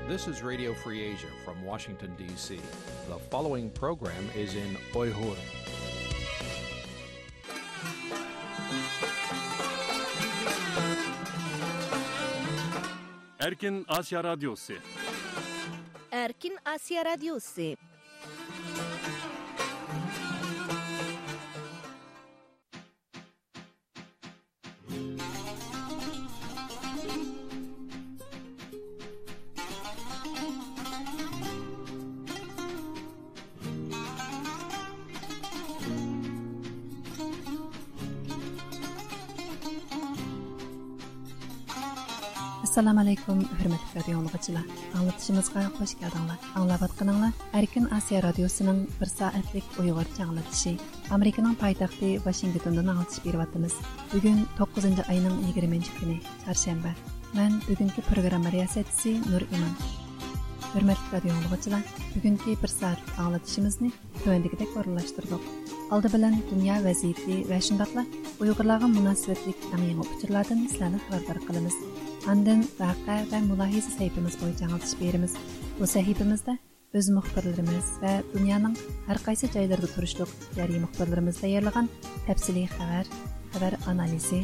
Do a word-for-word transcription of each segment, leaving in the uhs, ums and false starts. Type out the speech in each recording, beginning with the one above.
This is Radio Free Asia from Washington, D C. The following program is in Uyghur. Erkin Asya Radyosu. Erkin Asya Radyosu. ئەسسالامۇ ئەلەيكۇم، ھۆرمەتلىك رادىيو ئاڭلىغۇچىلار. ئاڭلىتىشىمىزغا خۇش كەلدىڭلار. ئاڭلاۋاتقىنىڭلار ئەركىن ئاسىيا رادىيوسىنىڭ بىر سائەتلىك ئۇيغۇرچە ئاڭلىتىشى. ئامېرىكىنىڭ پايتەختى ۋاشىنگتوندىن ئاڭلىتىش بېرىۋاتىمىز. بۈگۈن توققۇزىنچى ئاينىڭ يىگىرمىنچى كۈنى، چارشەنبە. مەن بۈگۈنكى پروگرامما رىياسەتچىسى نۇر ئىمان. ھۆرمەتلىك رادىيو ئاڭلىغۇچىلار، بۈگۈنكى بىر سائەتلىك ئاڭلىتىشىمىزنى تۆۋەندىكىدەك ئورۇنلاشتۇردۇق. ئالدى بىلەن دۇنيا ۋەزىيىتى ۋە شۇنداقلا ئۇيغۇرلارغا مۇناسىۋەتلىك ئەڭ يېڭى ئۇچۇرلاردىن سىلەرنى خەۋەردار قىلىمىز. ئاندىن ۋەقە ۋە مۇلاھىزە سەھىپىمىز بويىچە ئاڭلىتىش بېرىمىز. بۇ سەھىپىمىزدە ئۆز مۇخبىرلىرىمىز ۋە دۇنيانىڭ ھەر قايسى جايلىرىدا تۇرۇشلۇق ئىختىيارىي مۇخبىرلىرىمىز تەييارلىغان تەپسىلىي خەۋەر، خەۋەر ئانالىزى،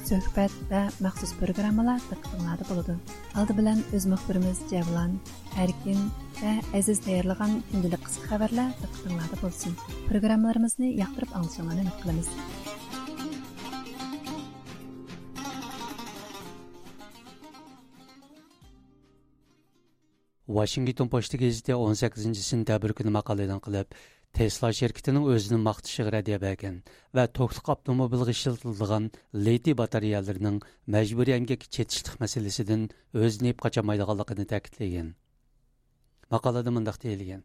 سۆھبەت ۋە مەخسۇس پروگراممىلار دىققىتىڭلاردا بولىدۇ. ئالدى بىلەن ئۆز مۇخبىرىمىز جەۋلان، ئەركىن ۋە ئەزىز تەييارلىغان كۈندىلىك قىسقا خەۋەرلەر دىققىتىڭلاردا بولسۇن. پروگراممىلىرىمىزنى ياقتۇرۇپ ئاڭلىشىڭلارنى ئۈمىد قىلىمىز. ۋاشىنگتون پوچتا گېزىتى ئون سەككىزىنچى سېنتەبىر كۈنى ماقالە ئېلان قىلىپ، تېسلا شىركىتىنىڭ ئۆزىنى ماختىشىغا رەددىيە بەرگەن ۋە توكلۇق ئاپتوموبىلغا ئىشلىتىلىدىغان لىتىي باتارېيەلىرىنىڭ مەجبۇرىي ئەمگەككە چېتىشلىق مەسىلىسىدىن ئۆزىنى يېپىپ قاچالمايدىغانلىقىنى تەكىتلىگەن. ماقالىدە مۇنداق دېيىلگەن: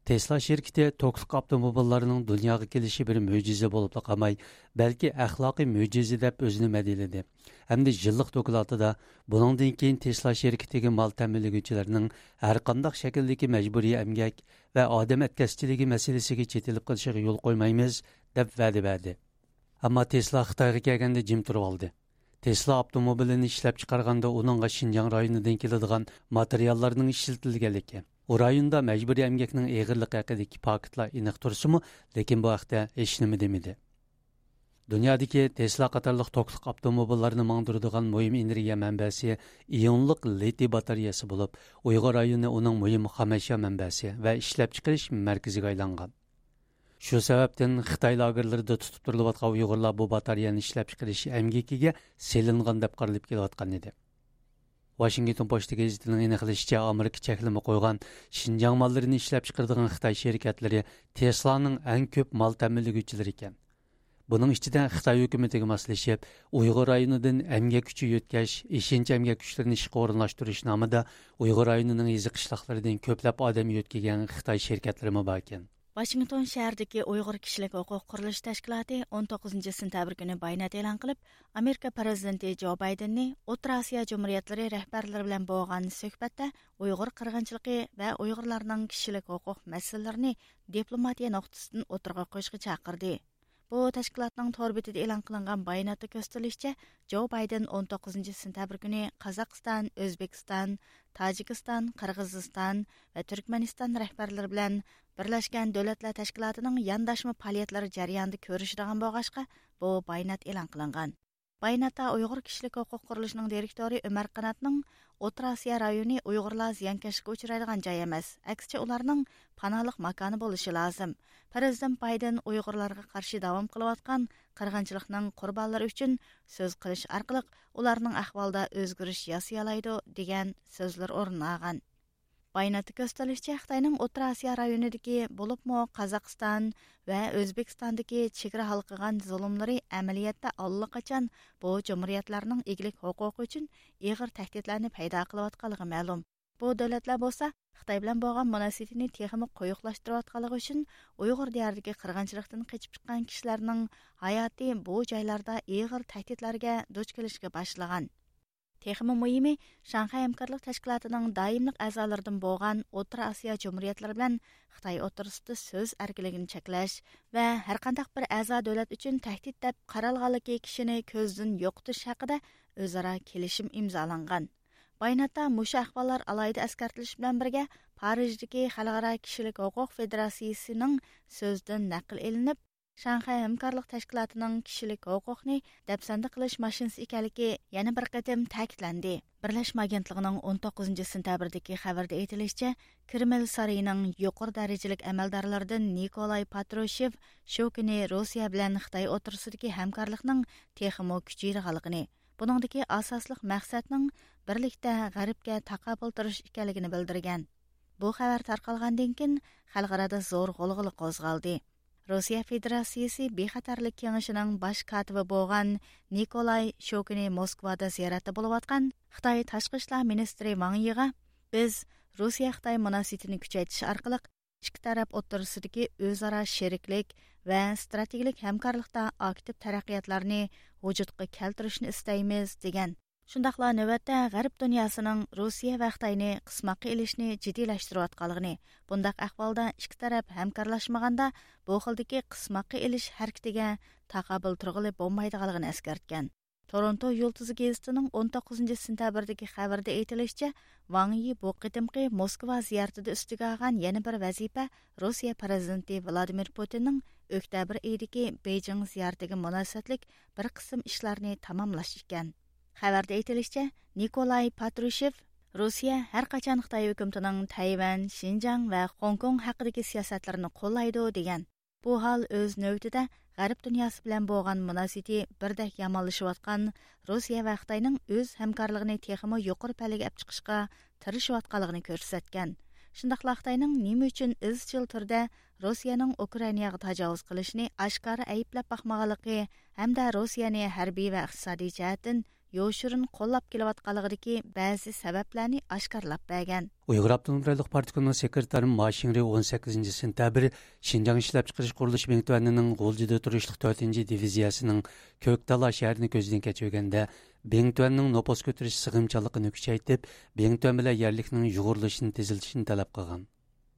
تېسلا شىركىتى توكلۇق ئاپتوموبىللارنىڭ دۇنياغا كېلىشى بىر مۆجىزە بولۇپلا قالماي، بەلكى ئەخلاقىي مۆجىزە دەپ ئۆزىنى مەدھىيەلىدى ھەمدە يىللىق دوكلاتىدا بۇنىڭدىن كېيىن تېسلا شىركىتىگە مال تەمىنلىگۈچىلەرنىڭ ھەرقانداق شەكىلدىكى مەجبۇرىي ئەمگەك ۋە ئادەم ئەتكەسچىلىكى مەسىلىسىگە چېتىلىپ قېلىشىغا يول قويمايمىز، دەپ ۋەدە بەردى. ئەمما تېسلا خىتايغا كەلگەندە جىم تۇرۇۋالدى. تېسلا ئاپتوموبىلىنى ئىشلەپچىقارغاندا ئۇنىڭغا شىنجاڭ رايونىدىن كېلىدىغان ماتېرىياللارنىڭ ئىشلىتىلگەنلىكى، ئۇ رايوندا مەجبۇرىي ئەمگەكنىڭ ئېغىرلىقى ھەققىدىكى پاكىتلار ئېنىق تۇرسىمۇ، لېكىن بۇ ھەقتە ھېچنېمە دېمىدى. دۇنيادىكى تېسلا قاتارلىق توكلۇق ئاپتوموبىللارنى ماڭدۇرىدىغان مۇھىم ئېنېرگىيە مەنبەسى ئىيونلۇق لىتىي باتارېيەسى بولۇپ، ئۇيغۇر رايونى ئۇنىڭ مۇھىم خامەشيا مەنبەسى ۋە ئىشلەپچىقىرىش مەركىزىگە ئايلانغان. شۇ سەۋەبتىن خىتاي لاگېرلىرىدا تۇتۇپ تۇرۇلۇۋاتقان ئۇيغۇرلار بۇ باتارېيەنى ئىشلەپچىقىرىش ئەمگىكىگە سېلىنغان دەپ قارىلىپ كېلىۋاتقان ئىدى. ۋاشىنگتون پوچتا گېزىتىنىڭ ئېنىقلىشىچە، ئامېرىكا چەكلىمە قويغان شىنجاڭ ماللىرىنى ئىشلەپچىقىرىدىغان خىتاي شىركەتلىرى تېسلانىڭ ئەڭ كۆپ مال تەمىنلىگۈچىلىرى ئىكەن. بۇنىڭ ئىچىدە خىتاي ھۆكۈمىتىگە ماسلىشىپ، ئۇيغۇر رايونىدىن ئەمگەك كۈچى يۆتكەش، ئېشىنچا ئەمگەك كۈچلىرىنى ئىشقا ئورۇنلاشتۇرۇش نامىدا ئۇيغۇر رايونىنىڭ يېزا قىشلاقلىرىدىن كۆپلەپ ئادەم يۆتكىگەن خىتاي شىركەتلىرىمۇ باركەن. ۋاشىنگتون شەھىرىدىكى ئۇيغۇر كىشىلىك ھوقۇق قۇرۇلۇشى تەشكىلاتى ئون توققۇزىنچى سېنتەبىر كۈنى بايانات ئېلان قىلىپ، ئامېرىكا پىرېزىدېنتى جو بايدېننى ئوتتۇرا ئاسىيا جۇمھۇرىيەتلىرى رەھبەرلىرى بىلەن بولغان سۆھبەتتە ئۇيغۇر قىرغىنچىلىقى ۋە ئۇيغۇرلارنىڭ كىشىلىك ھوقۇق مەسىلىلىرىنى دىپلوماتىيە نۇقتىسىدىن ئوتتۇرىغا قويۇشقا چاقىردى. بۇ تەشكىلاتنىڭ تور بېتىدە ئېلان قىلىنغان باياناتتا كۆرسىتىلىشىچە، جو بايدېن ئون توققۇزىنچى سېنتەبىر كۈنى قازاقىستان، ئۆزبېكىستان، تاجىكىستان، قىرغىزىستان ۋە تۈركمەنىستان رەھبەرلىرى بىلەن بىرلەشكەن دۆلەتلەر تەشكىلاتىنىڭ يانداشما پائالىيەتلىرى جەريانىدا كۆرۈشىدىغان بولغاچقا، بۇ بايانات ئېلان قىلىنغان. باياناتتا ئۇيغۇر كىشىلىك ھوقۇق قۇرۇلۇشىنىڭ دىرېكتورى ئۆمەر قاناتنىڭ ئوتتۇرا ئاسىيا رايونى ئۇيغۇرلار زىيانكەشلىككە ئۇچرايدىغان جاي ئەمەس، ئەكسىچە ئۇلارنىڭ پاناھلىق ماكانى بولۇشى لازىم. پىرېزىدېنت بايدېن ئۇيغۇرلارغا قارشى داۋام قىلىۋاتقان قىرغىنچىلىقنىڭ قۇربانلىرى ئۈچۈن سۆز قىلىش ئارقىلىق ئۇلارنىڭ ئەھۋالىدا ئۆزگىرىش ياسىيالايدۇ، دېگەن سۆزلەر ئورۇن ئالغان. باياناتتا كۆرسىتىلىشىچە، خىتاينىڭ ئوتتۇرا ئاسىيا رايونىدىكى، بولۇپمۇ قازاقىستان ۋە ئۆزبېكىستاندىكى چېگرا ھالقىغان زۇلۇملىرى ئەمەلىيەتتە ئاللىقاچان بۇ جۇمھۇرىيەتلەرنىڭ ئىگىلىك ھوقۇقى ئۈچۈن ئېغىر تەھدىتلەرنى پەيدا قىلىۋاتقانلىقى مەلۇم. بۇ دۆلەتلەر بولسا خىتاي بىلەن بولغان مۇناسىۋىتىنى تېخىمۇ قويۇقلاشتۇرۇۋاتقانلىقى ئۈچۈن، ئۇيغۇر دىيارىدىكى قىرغىنچىلىقتىن قېچىپ چىققان كىشىلەرنىڭ ھاياتى بۇ جايلاردا ئېغىر تەھدىتلەرگە دۇچ كېلىشكە باشلىغان. تېخىمۇ مۇھىمى، شاڭخەي ھەمكارلىق تەشكىلاتىنىڭ دائىملىق ئەزالىرىدىن بولغان ئوتتۇرا ئاسىيا جۇمھۇرىيەتلىرى بىلەن خىتاي ئوتتۇرىسىدا سۆز ئەركىنلىكىنى چەكلەش ۋە ھەرقانداق بىر ئەزا دۆلەت ئۈچۈن تەھدىت دەپ قارالغانلىكى كىشىنى كۆزدىن يوقىتىش ھەققىدە ئۆزئارا كېلىشىم ئىمزالانغان. باياناتتا مۇشۇ ئەھۋاللار ئالاھىدە ئەسكەرتىلىشى بىلەن بىرگە، پارىژدىكى خەلقئارا كىشىلىك ھوقۇق فېدېراتسىيىسىنىڭ سۆزىدىن نەقىل ئېلىنىپ، شاڭخەي ھەمكارلىق تەشكىلاتىنىڭ كىشىلىك ھوقۇقنى دەپسەندە قىلىش ماشىنىسى ئىكەنلىكى يەنە بىر قېتىم تەكىتلەندى. بىرلەشمە ئاگېنتلىقىنىڭ ئون توققۇزىنچى سېنتەبىردىكى خەۋىرىدە ئېيتىلىشىچە، كرېمل سارىيىنىڭ يۇقىرى دەرىجىلىك ئەمەلدارلىرىدىن نىكولاي پاترۇشېۋ شۇ كۈنى روسىيە بىلەن خىتاي ئوتتۇرىسىدىكى ھەمكارلىقنىڭ تېخىمۇ كۈچىيىدىغانلىقىنى، بۇنىڭدىكى ئاساسلىق مەقسەتنىڭ بىرلىكتە غەربكە تاقابىل تۇرۇش ئىكەنلىكىنى بىلدۈرگەن. بۇ خەۋەر تارقالغاندىن كېيىن، خەلقئارادا زور غۇلغۇلا قوزغالدى. روسىيە فېدېراتسىيىسى بىخەتەرلىك كېڭىشىنىڭ باش كاتىپى بولغان نىكولاي شۇ كۈنى موسكۋادا زىيارەتتە بولۇۋاتقان خىتاي تاشقى ئىشلار مىنىستىرى ۋاڭ يىغا، بىز روسىيە-خىتاي مۇناسىۋىتىنى كۈچەيتىش ئارقىلىق ئىككى تەرەپ ئوتتۇرىسىدىكى ئۆزئارا شېرىكلىك ۋە ئىستراتېگىيەلىك ھەمكارلىقتا ئاكتىپ تەرەققىياتلارنى ۋۇجۇدقا كەلتۈرۈشنى ئىستەيمىز، دېگەن. شۇنداقلا نۆۋەتتە غەرب دۇنياسىنىڭ روسىيە ۋە خىتاينى قىسماققا ئېلىشنى جىددىيلەشتۈرۈۋاتقانلىقىنى، بۇنداق ئەھۋالدا ئىككى تەرەپ ھەمكارلاشمىغاندا، بۇ خىلدىكى قىسماققا ئېلىش ھەرىكىتىگە تاقابىل تۇرغىلى بولمايدىغانلىقىنى ئەسكەرتكەن. تورونتو يۇلتۇزى گېزىتىنىڭ ئون توققۇزىنچى سېنتەبىردىكى خەۋىرىدە ئېيتىلىشىچە، ۋاڭ يى بۇ قېتىمقى موسكۋا زىيارىتىدە ئۈستىگە ئالغان يەنە بىر ۋەزىپە روسىيە پىرېزىدېنتى ۋلادىمىر پۇتىننىڭ ئۆكتەبىر ئېيىدىكى بېيجىڭ زىيارىتىگە مۇناسىۋەتلىك بىر قىسىم ئىشلارنى تاماملاش ئىكەن. خەۋەردە ئېيتىلىشىچە، نىكولاي پاترۇشېۋ روسىيە ھەر قاچان خىتاي ھۆكۈمىتىنىڭ تەيۋەن، شىنجاڭ ۋە خوڭكوڭ ھەققىدىكى سىياسەتلىرىنى قوللايدۇ، دېگەن. بۇ ھال ئۆز نۆۋىتىدە غەرب دۇنياسى بىلەن بولغان مۇناسىۋىتى بىردەك يامانلىشىۋاتقان روسىيە ۋە خىتاينىڭ ئۆز ھەمكارلىقىنى تېخىمۇ يۇقىرى پەللىگە ئەپ چىقىشقا تىرىشىۋاتقانلىقىنى كۆرسەتكەن. شۇنداقلا خىتاينىڭ نېمە ئۈچۈن ئىزچىل تۈردە روسىيەنىڭ ئۇكرائىناغا تاجاۋۇز قىلىشىنى ئاشكارا ئەيىبلەپ باقمىغانلىقى ھەمدە روسىيەنى ھەربىي ۋە ئىقتىسادىي جەھەتتىن يوشۇرۇن قوللاپ كېلىۋاتقانلىقىدىكى بەزى سەۋەبلەرنى ئاشكارىلاپ بەرگەن. ئۇيغۇر ئاپتونوم رايونلۇق پارتكومنىڭ سېكرېتارى ما شىڭرۇي ئون سەككىزىنچى سېنتەبىر شىنجاڭ ئىشلەپچىقىرىش قۇرۇلۇشى بىڭتۈەنىنىڭ غۇلجىدا تۇرۇشلۇق تۆتىنچى دىۋىزىيەسىنىڭ كۆكتالا شەھىرىنى كۆزدىن كەچۈرگەندە، بىڭتۈەننىڭ نوپۇس كۆتۈرۈش سىغىمچانلىقىنى كۈچەيتىپ، بىڭتۈەن بىلەن يەرلىكنىڭ يۇغۇرۇلۇشىنى تېزلىتىشنى تەلەپ قىلغان.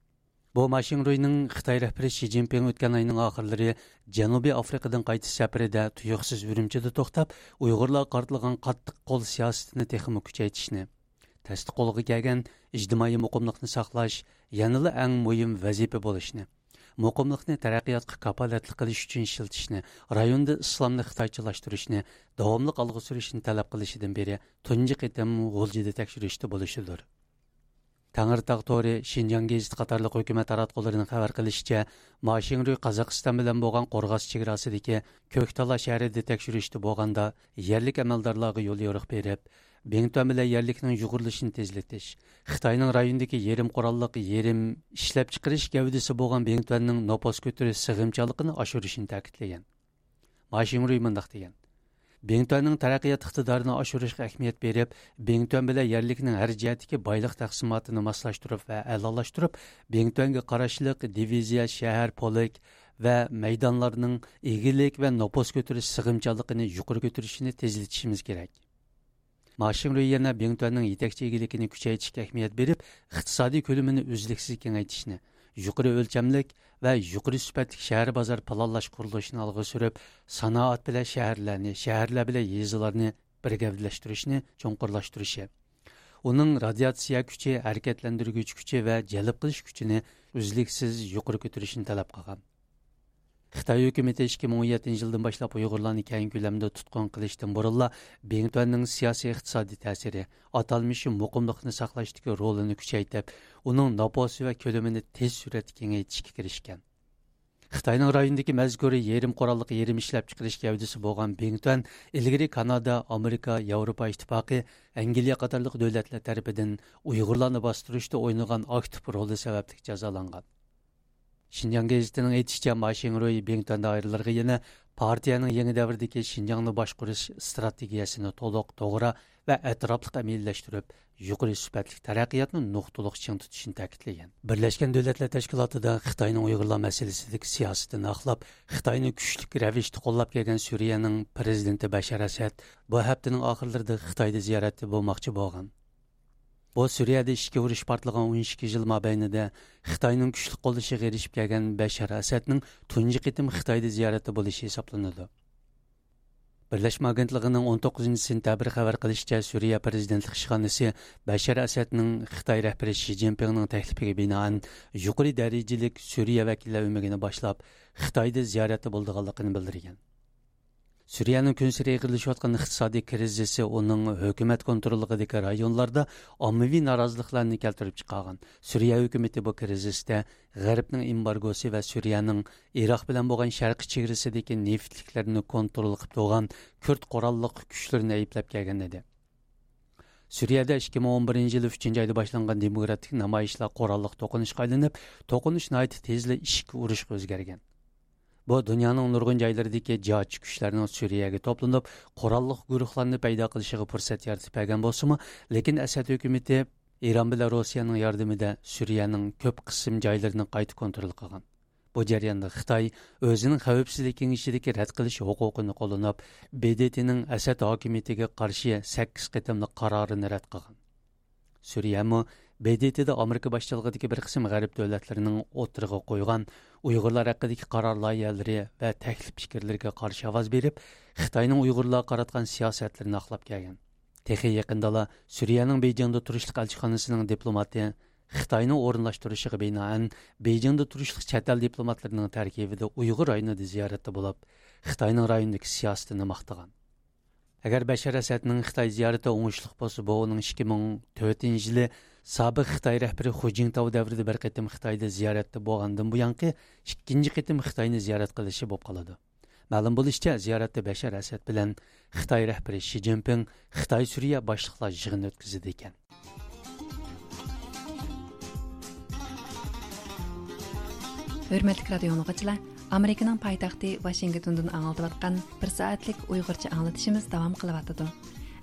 بۇ ما شىڭرۇينىڭ خىتاي رەھبىرى شى جىنپىڭ ئۆتكەن ئاينىڭ ئاخىرلىرى جەنۇبىي ئافرىقىدىن قايتىش سەپىرىدە تۇيۇقسىز ئۈرۈمچىدە توختاپ، ئۇيغۇرلارغا قارىتىلغان قاتتىق قول سىياسىتىنى تېخىمۇ كۈچەيتىشنى، تەستە قولغا كەلگەن ئىجتىمائىي مۇقىملىقنى ساقلاش يەنىلا ئەڭ مۇھىم ۋەزىپە بولۇشىنى، مۇقىملىقنى تەرەققىياتقا كاپالەتلىك قىلىش ئۈچۈن ئىشلىتىشنى، رايوندا ئىسلامنى خىتايچىلاشتۇرۇشنى داۋاملىق ئالغا سۈرۈشنى تەلەپ قىلىشىدىن بېرى تۇنجى قېتىم غۇلجىدا تەكشۈرۈشتە بولۇشىدۇر. تەڭرىتاغ تورى، شىنجاڭ گېزىتى قاتارلىق ھۆكۈمەت تاراتقۇلىرىنىڭ خەۋەر قىلىشىچە، ما شىڭرۇي قازاقىستان بىلەن بولغان قورغاس چېگراسىدىكى كۆكتالا شەھىرىدە تەكشۈرۈشتە بولغاندا، يەرلىك ئەمەلدارلارغا يوليورۇق بېرىپ، بىڭتۈەن بىلەن يەرلىكنىڭ يۇغۇرۇلۇشىنى تېزلىتىش، خىتاينىڭ رايوندىكى يېرىم قوراللىق يېرىم ئىشلەپچىقىرىش گەۋدىسى بولغان بىڭتۈەننىڭ نوپۇس كۆتۈرۈش سىغىمچانلىقىنى ئاشۇرۇشىنى تەكىتلىگەن. ما شىڭرۇي مۇنداق دېگەن: بىڭتۈەننىڭ تەرەققىيات ئىقتىدارىنى ئاشۇرۇشقا ئەھمىيەت بېرىپ، بىڭتۈەن بىلەن يەرلىكنىڭ ھەر جەھەتتىكى بايلىق تەقسىماتىنى ماسلاشتۇرۇپ ۋە ئەلالاشتۇرۇپ، بىڭتۈەنگە قاراشلىق دىۋىزىيە، شەھەر، پولك ۋە مەيدانلارنىڭ ئىگىلىك ۋە نوپۇس كۆتۈرۈش سىغىمچانلىقىنى يۇقىرى كۆتۈرۈشىنى تېزلىتىشىمىز كېرەك. ما شىڭرۇي يەنە بىڭتۈەننىڭ يېتەكچى ئىگىلىكىنى كۈچەيتىشكە ئەھمىيەت بېرىپ، ئىقتىسادىي كۆلىمىنى ئۈزلۈكسىز كېڭەيتىشنى، يۇقىرى ئۆلچەملىك ۋە يۇقىرى سۈپەتلىك شەھەر بازار پىلانلاش قۇرۇلۇشىنى ئالغا سۈرۈپ، سانائەت بىلەن شەھەرلەرنى، شەھەرلەر بىلەن يېزىلارنى بىر گەۋدىلەشتۈرۈشنى چوڭقۇرلاشتۇرۇشى، ئۇنىڭ رادىياتسىيە كۈچى، ھەرىكەتلەندۈرگۈچ كۈچى ۋە جەلپ قىلىش كۈچىنى ئۈزلۈكسىز يۇقىرى كۆتۈرۈشنى تەلەپ قىلغان. خىتاي ھۆكۈمىتى ئىككى مىڭ ئون يەتتىنچى يىلدىن باشلاپ ئۇيغۇرلارنى كەڭ كۆلەمدە تۇتقۇن قىلىشتىن بۇرۇنلا، بىڭتۈەننىڭ سىياسىي ئىقتىسادىي تەسىرى، ئاتالمىش مۇقىملىقنى ساقلاشتىكى رولىنى كۈچەيتىپ، ئۇنىڭ نوپۇسى ۋە كۆلىمىنى تېز سۈرئەتتە كېڭەيتىشكە كىرىشكەن. خىتاينىڭ رايوندىكى مەزكۇر يېرىم قوراللىق يېرىم ئىشلەپچىقىرىش گەۋدىسى بولغان بىڭتۈەن ئىلگىرى كانادا، ئامېرىكا، ياۋروپا ئىتتىپاقى، ئەنگلىيە قاتارلىق دۆلەتلەر تەرىپىدىن ئۇيغۇرلارنى باستۇرۇشتا ئوينىغان ئاكتىپ رولى سەۋەبلىك جازالانغان. شىنجاڭ گېزىتىنىڭ ئېيتىشىچە، ما شىڭرۇي بىڭتۈەن دائىرىلىرىغا يەنە پارتىيەنىڭ يېڭى دەۋردىكى شىنجاڭنى باشقۇرۇش ئىستراتېگىيەسىنى تولۇق، توغرا ۋە ئەتراپلىق ئەمەلىيلەشتۈرۈپ، يۇقىرى سۈپەتلىك تەرەققىياتنى نۇقتىلىق چىڭ تۇتۇشنى تەكىتلىگەن. بىرلەشكەن دۆلەتلەر تەشكىلاتىدا خىتاينىڭ ئۇيغۇرلار مەسىلىسىدىكى سىياسىتىنى ئاقلاپ، خىتاينى كۈچلۈك رەۋىشتە قوللاپ كەلگەن سۈرىيەنىڭ پىرېزىدېنتى بەشار ئەسەد بۇ ھەپتىنىڭ ئاخىرلىرىدا خىتايدا زىيارەتتە بولماقچى بولغان. بۇ سۈرىيەدە ئىچكى ئۇرۇش پارتلىغان ئون ئىككى يىل مابەينىدە خىتاينىڭ كۈچلۈك قوللىشىغا ئېرىشىپ كەلگەن بەشار ئەسەدنىڭ تۇنجى قېتىم خىتايدا زىيارەتتە بولۇشى ھېسابلىنىدۇ. بىرلەشمە ئاگېنتلىقىنىڭ ئون توققۇزىنچى سېنتەبىر خەۋەر قىلىشىچە، سۈرىيە پىرېزىدېنتلىق ئىشخانىسى بەشار ئەسەدنىڭ خىتاي رەھبىرى شى جىنپىڭنىڭ تەكلىپىگە بىنائەن يۇقىرى دەرىجىلىك سۈرىيە ۋەكىللەر ئۆمىكىنى باشلاپ، خىتايدا زىيارەتتە بولىدىغانلىقىنى بىلدۈرگەن. سۈرىيەنىڭ كۈنسېرى ئېغىرلىشىۋاتقان ئىقتىسادىي كىرىزىسى ئۇنىڭ ھۆكۈمەت كونتروللۇقىدىكى رايونلاردا ئاممىۋى نارازىلىقلارنى كەلتۈرۈپ چىقارغان. سۈرىيە ھۆكۈمىتى بۇ كىرىزىستا غەربنىڭ ئېمبارگوسى ۋە سۈرىيەنىڭ ئىراق بىلەن بولغان شەرقىي چېگرىسىدىكى نېفىتلىكلەرنى كونترول قىلىپ تۇرغان كۈرد قوراللىق كۈچلىرىنى ئەيىبلەپ كەلگەن ئىدى. سۈرىيەدە ئىككى مىڭ ئون بىرىنچى يىلى ئۈچىنچى ئايدا باشلانغان دېموكراتىك نامايىشلار قوراللىق توقۇنۇشقا ئايلىنىپ، توقۇنۇش ناھايىتى تېزلا ئىچكى ئۇرۇشقا ئۆزگەرگەن. بۇ دۇنيانىڭ نۇرغۇن جايلىرىدىكى جىھادچى كۈچلەرنىڭ سۈرىيەگە توپلىنىپ، قوراللىق گۇرۇھلارنى پەيدا قىلىشىغا پۇرسەت يارىتىپ بەرگەن بولسىمۇ، لېكىن ئەسەد ھۆكۈمىتى ئىران بىلەن روسىيەنىڭ ياردىمىدە سۈرىيەنىڭ كۆپ قىسىم جايلىرىنى قايتا كونترول قىلغان. بۇ جەرياندا خىتاي ئۆزىنىڭ خەۋپسىزلىك كېڭىشىدىكى رەت قىلىش ھوقۇقىنى قوللىنىپ، ب د ت نىڭ ئەسەد ھاكىمىيىتىگە قارشى سەككىز قېتىملىق قارارىنى رەت قىلغان. سۈرىيەمۇ ب د ت دا ئامېرىكا باشچىلىقىدىكى بىر قىسىم غەرب دۆلەتلىرىنىڭ ئوتتۇرىغا قويغان ئۇيغۇرلار ھەققىدىكى قارار لايىھەلىرى ۋە تەكلىپ پىكىرلىرىگە قارشى ئاۋاز بېرىپ، خىتاينىڭ ئۇيغۇرلارغا قاراتقان سىياسەتلىرىنى ئاقلاپ كەلگەن. تېخى يېقىندىلا سۈرىيەنىڭ بېيجىڭدا تۇرۇشلۇق ئەلچىخانىسىنىڭ دىپلوماتى خىتاينىڭ ئورۇنلاشتۇرۇشىغا بىنائەن، بېيجىڭدا تۇرۇشلۇق چەت ئەل دىپلوماتلىرىنىڭ تەركىبىدە ئۇيغۇر رايونىدا زىيارەتتە بولۇپ، خىتاينىڭ رايوندىكى سىياسىتىنى ماختىغان. ئەگەر بەشار ئەسەدنىڭ خىتاي زىيارىتى ئوڭۇشلۇق بولسا، بۇ ئۇنىڭ ئىككى مىڭ تۆتىنچى يىلى سابىق خىتاي رەھبىرى خۇ جىنتاۋ دەۋرىدە بىر قېتىم خىتايدا زىيارەتتە بولغاندىن بۇيانقى ئىككىنچى قېتىم خىتاينى زىيارەت قىلىشى بولۇپ قالىدۇ. مەلۇم بولۇشىچە، زىيارەتتە بەشار ئەسەد بىلەن خىتاي رەھبىرى شى جىنپىڭ خىتاي سۈرىيە باشلىقلار يىغىنى ئۆتكۈزىدىكەن. ھۆرمەتلىك رادىيو ئاڭلىغۇچىلار، ئامېرىكىنىڭ پايتەختى ۋاشىنگتوندىن ئاڭلىتىۋاتقان بىر سائەتلىك ئۇيغۇرچە ئاڭلىتىشىمىز داۋام قىلىۋاتىدۇ.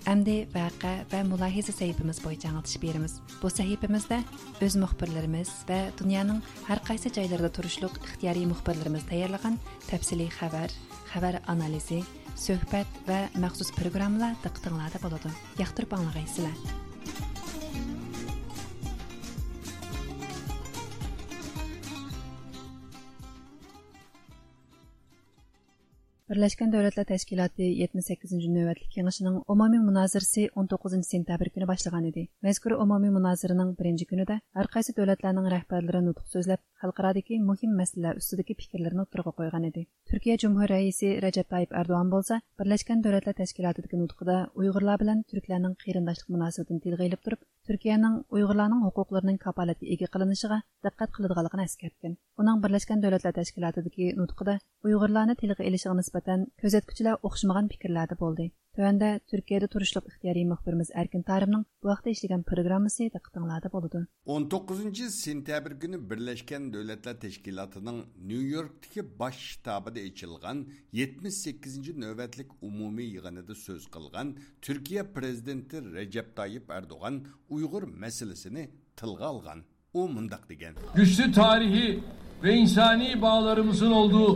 ئەمدى ۋەقە ۋە مۇلاھىزە سەھىپىمىز بويىچە ئاڭلىتىش بېرىمىز. بۇ سەھىپىمىزدە ئۆز مۇخبىرلىرىمىز ۋە دۇنيانىڭ ھەر قايسى جايلىرىدا تۇرۇشلۇق ئىختىيارىي مۇخبىرلىرىمىز تەييارلىغان تەپسىلىي خەۋەر، خەۋەر ئانالىزى، سۆھبەت ۋە مەخسۇس پروگراممىلار دىققىتىڭلاردا بولىدۇ. ياقتۇرۇپ ئاڭلىغايسىلەر. بىرلەشكەن دۆلەتلەر تەشكىلاتى يەتمىش سەككىزىنچى نۆۋەتلىك يىغىشىنىڭ ئومۇمىي مۇنازىرىسى ئون توققۇزىنچى سېنتەبىر كۈنى باشلىغان ئىدى. مەزكۇر ئومۇمىي مۇنازىرىنىڭ بىرىنچى كۈنىدە ھەر قايسى دۆلەتلەرنىڭ رەھبەرلىرى نۇتۇق سۆزلەپ، خەلقئارادىكى مۇھىم مەسىلىلەر ئۈستىدىكى پىكىرلىرىنى ئوتتۇرىغا قويغان ئىدى. تۈركىيە جۇمھۇر رەئىسى رەجەپ تايىپ ئەردوغان بولسا بىرلەشكەن دۆلەتلەر تەشكىلاتىدىكى نۇتقىدا ئۇيغۇرلار بىلەن تۈركلەرنىڭ قېرىنداشلىق مۇناسىۋىتىنى تىلغا ئېلىپ تۇرۇپ، تۈركىيەنىڭ ئۇيغۇرلارنىڭ ھوقۇقلىرىنىڭ كاپالەتكە ئىگە قىلىنىشىغا دىققەت قىلىدىغانلىقىنى ئەسكەرتكەن. ئۇنىڭ بىرلەشكەن دۆلەتلەر تەشكىلاتىدىكى نۇتقىدا ئۇيغۇرلارنى تىلغا ئېلىشىغا نىسبەتەن كۆزەتكۈچىلەر ئوخشىمىغان پىكىرلەردە بولدى. تۆۋەندە تۈركىيەدە تۇرۇشلۇق ئىختىيارىي مۇخبىرىمىز ئەركىن تارىمنىڭ بۇ ھەقتە ئىشلىگەن پروگراممىسى دىققىتىڭلاردا بولىدۇ. ئون توققۇزىنچى سېنتەبىر كۈنى بىرلەشكەن دۆلەتلەر تەشكىلاتىنىڭ نيۇ يوركتىكى باش شتابىدا ئېچىلغان يەتمىش سەككىزىنچى نۆۋەتلىك ئومۇمىي يىغىنىدا سۆز قىلغان تۈركىيە پىرېزىدېنتى رەجەپ تايىپ ئەردوغان ئۇيغۇر مەسىلىسىنى تىلغا ئالغان. ئۇ مۇنداق دېگەن. Güçlü tarihi ve insani bağlarımızın olduğu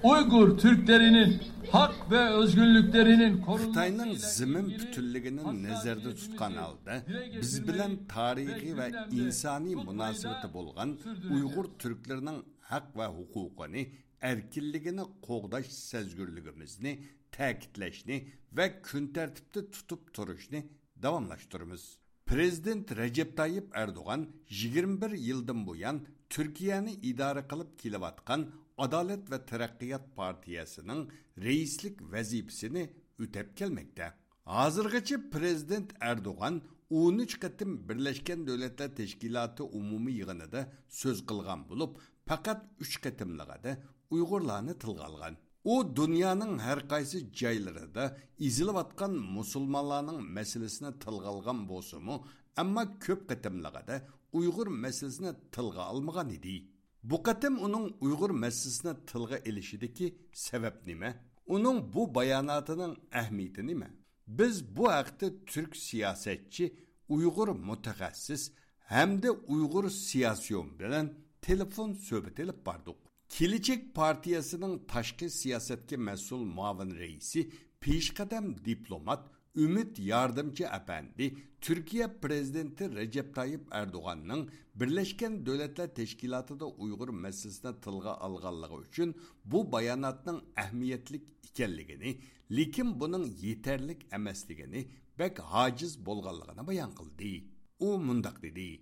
Uygur Türklerinin hak ve özgürlüklerinin korunması خىتاينىڭ زېمىن پۈتۈنلۈكىنى نەزەردە تۇتقان ھالدا، بىز بىلەن تارىخىي ۋە ئىنسانىي مۇناسىۋىتى بولغان ئۇيغۇر تۈركلىرىنىڭ ھەق ۋە ھوقۇقىنى، ئەركىنلىكىنى قوغداش سەزگۈرلۈكىمىزنى تەكىتلەشنى ۋە كۈن تەرتىپتە تۇتۇپ تۇرۇشنى داۋاملاشتۇرىمىز. پىرېزىدېنت رەجەپ تايىپ ئەردوغان يىگىرمە بىر يىلدىن بۇيان تۈركىيەنى ئىدارە قىلىپ كېلىۋاتقان ئادالەت ۋە تەرەققىيات پارتىيەسىنىڭ رەئىسلىك ۋەزىپىسىنى ئۆتەپ كەلمەكتە. ھازىرغىچە پىرېزىدېنت ئەردوغان ئون ئۈچ قېتىم بىرلەشكەن دۆلەتلەر تەشكىلاتى ئومۇمىي يىغىنىدا سۆز قىلغان بولۇپ، پەقەت ئۈچ قېتىملىقىدا ئۇيغۇرلارنى تىلغا ئالغان. ئۇ دۇنيانىڭ ھەر قايسى جايلىرىدا ئېزىلىۋاتقان مۇسۇلمانلارنىڭ مەسىلىسىنى تىلغا ئالغان بولسىمۇ، ئەمما كۆپ قېتىملىقىدا ئۇيغۇر مەسىلىسىنى تىلغا ئالمىغان ئىدى. بۇ قېتىم ئۇنىڭ ئۇيغۇر مەسىلىسىنى تىلغا ئېلىشىدىكى سەۋەب نېمە؟ ئۇنىڭ بۇ باياناتىنىڭ ئەھمىيىتى نېمە؟ بىز بۇ ھەقتە تۈرك سىياسەتچى، ئۇيغۇر مۇتەخەسسىس ھەمدە ئۇيغۇر سىياسىيون بىلەن تېلېفون سۆھبىتى ئېلىپ باردۇق. كېلىچەك پارتىيەسىنىڭ تاشقى سىياسەتكە مەسئۇل مۇئاۋىن رەئىسى، پېشقەدەم دىپلومات، ئۈمىد ياردىمچى ئەپەندى تۈركىيە پىرېزىدېنتى رەجەپ تايىپ ئەردوغاننىڭ بىرلەشكەن دۆلەتلەر تەشكىلاتىدا ئۇيغۇر مەسىلىسىنى تىلغا ئالغانلىقى ئۈچۈن بۇ باياناتنىڭ ئەھمىيەتلىك ئىكەنلىكىنى، لېكىن بۇنىڭ يېتەرلىك ئەمەسلىكىنى، بەك ھاجىز بولغانلىقىنى بايان قىلدى. ئۇ مۇنداق دېدى.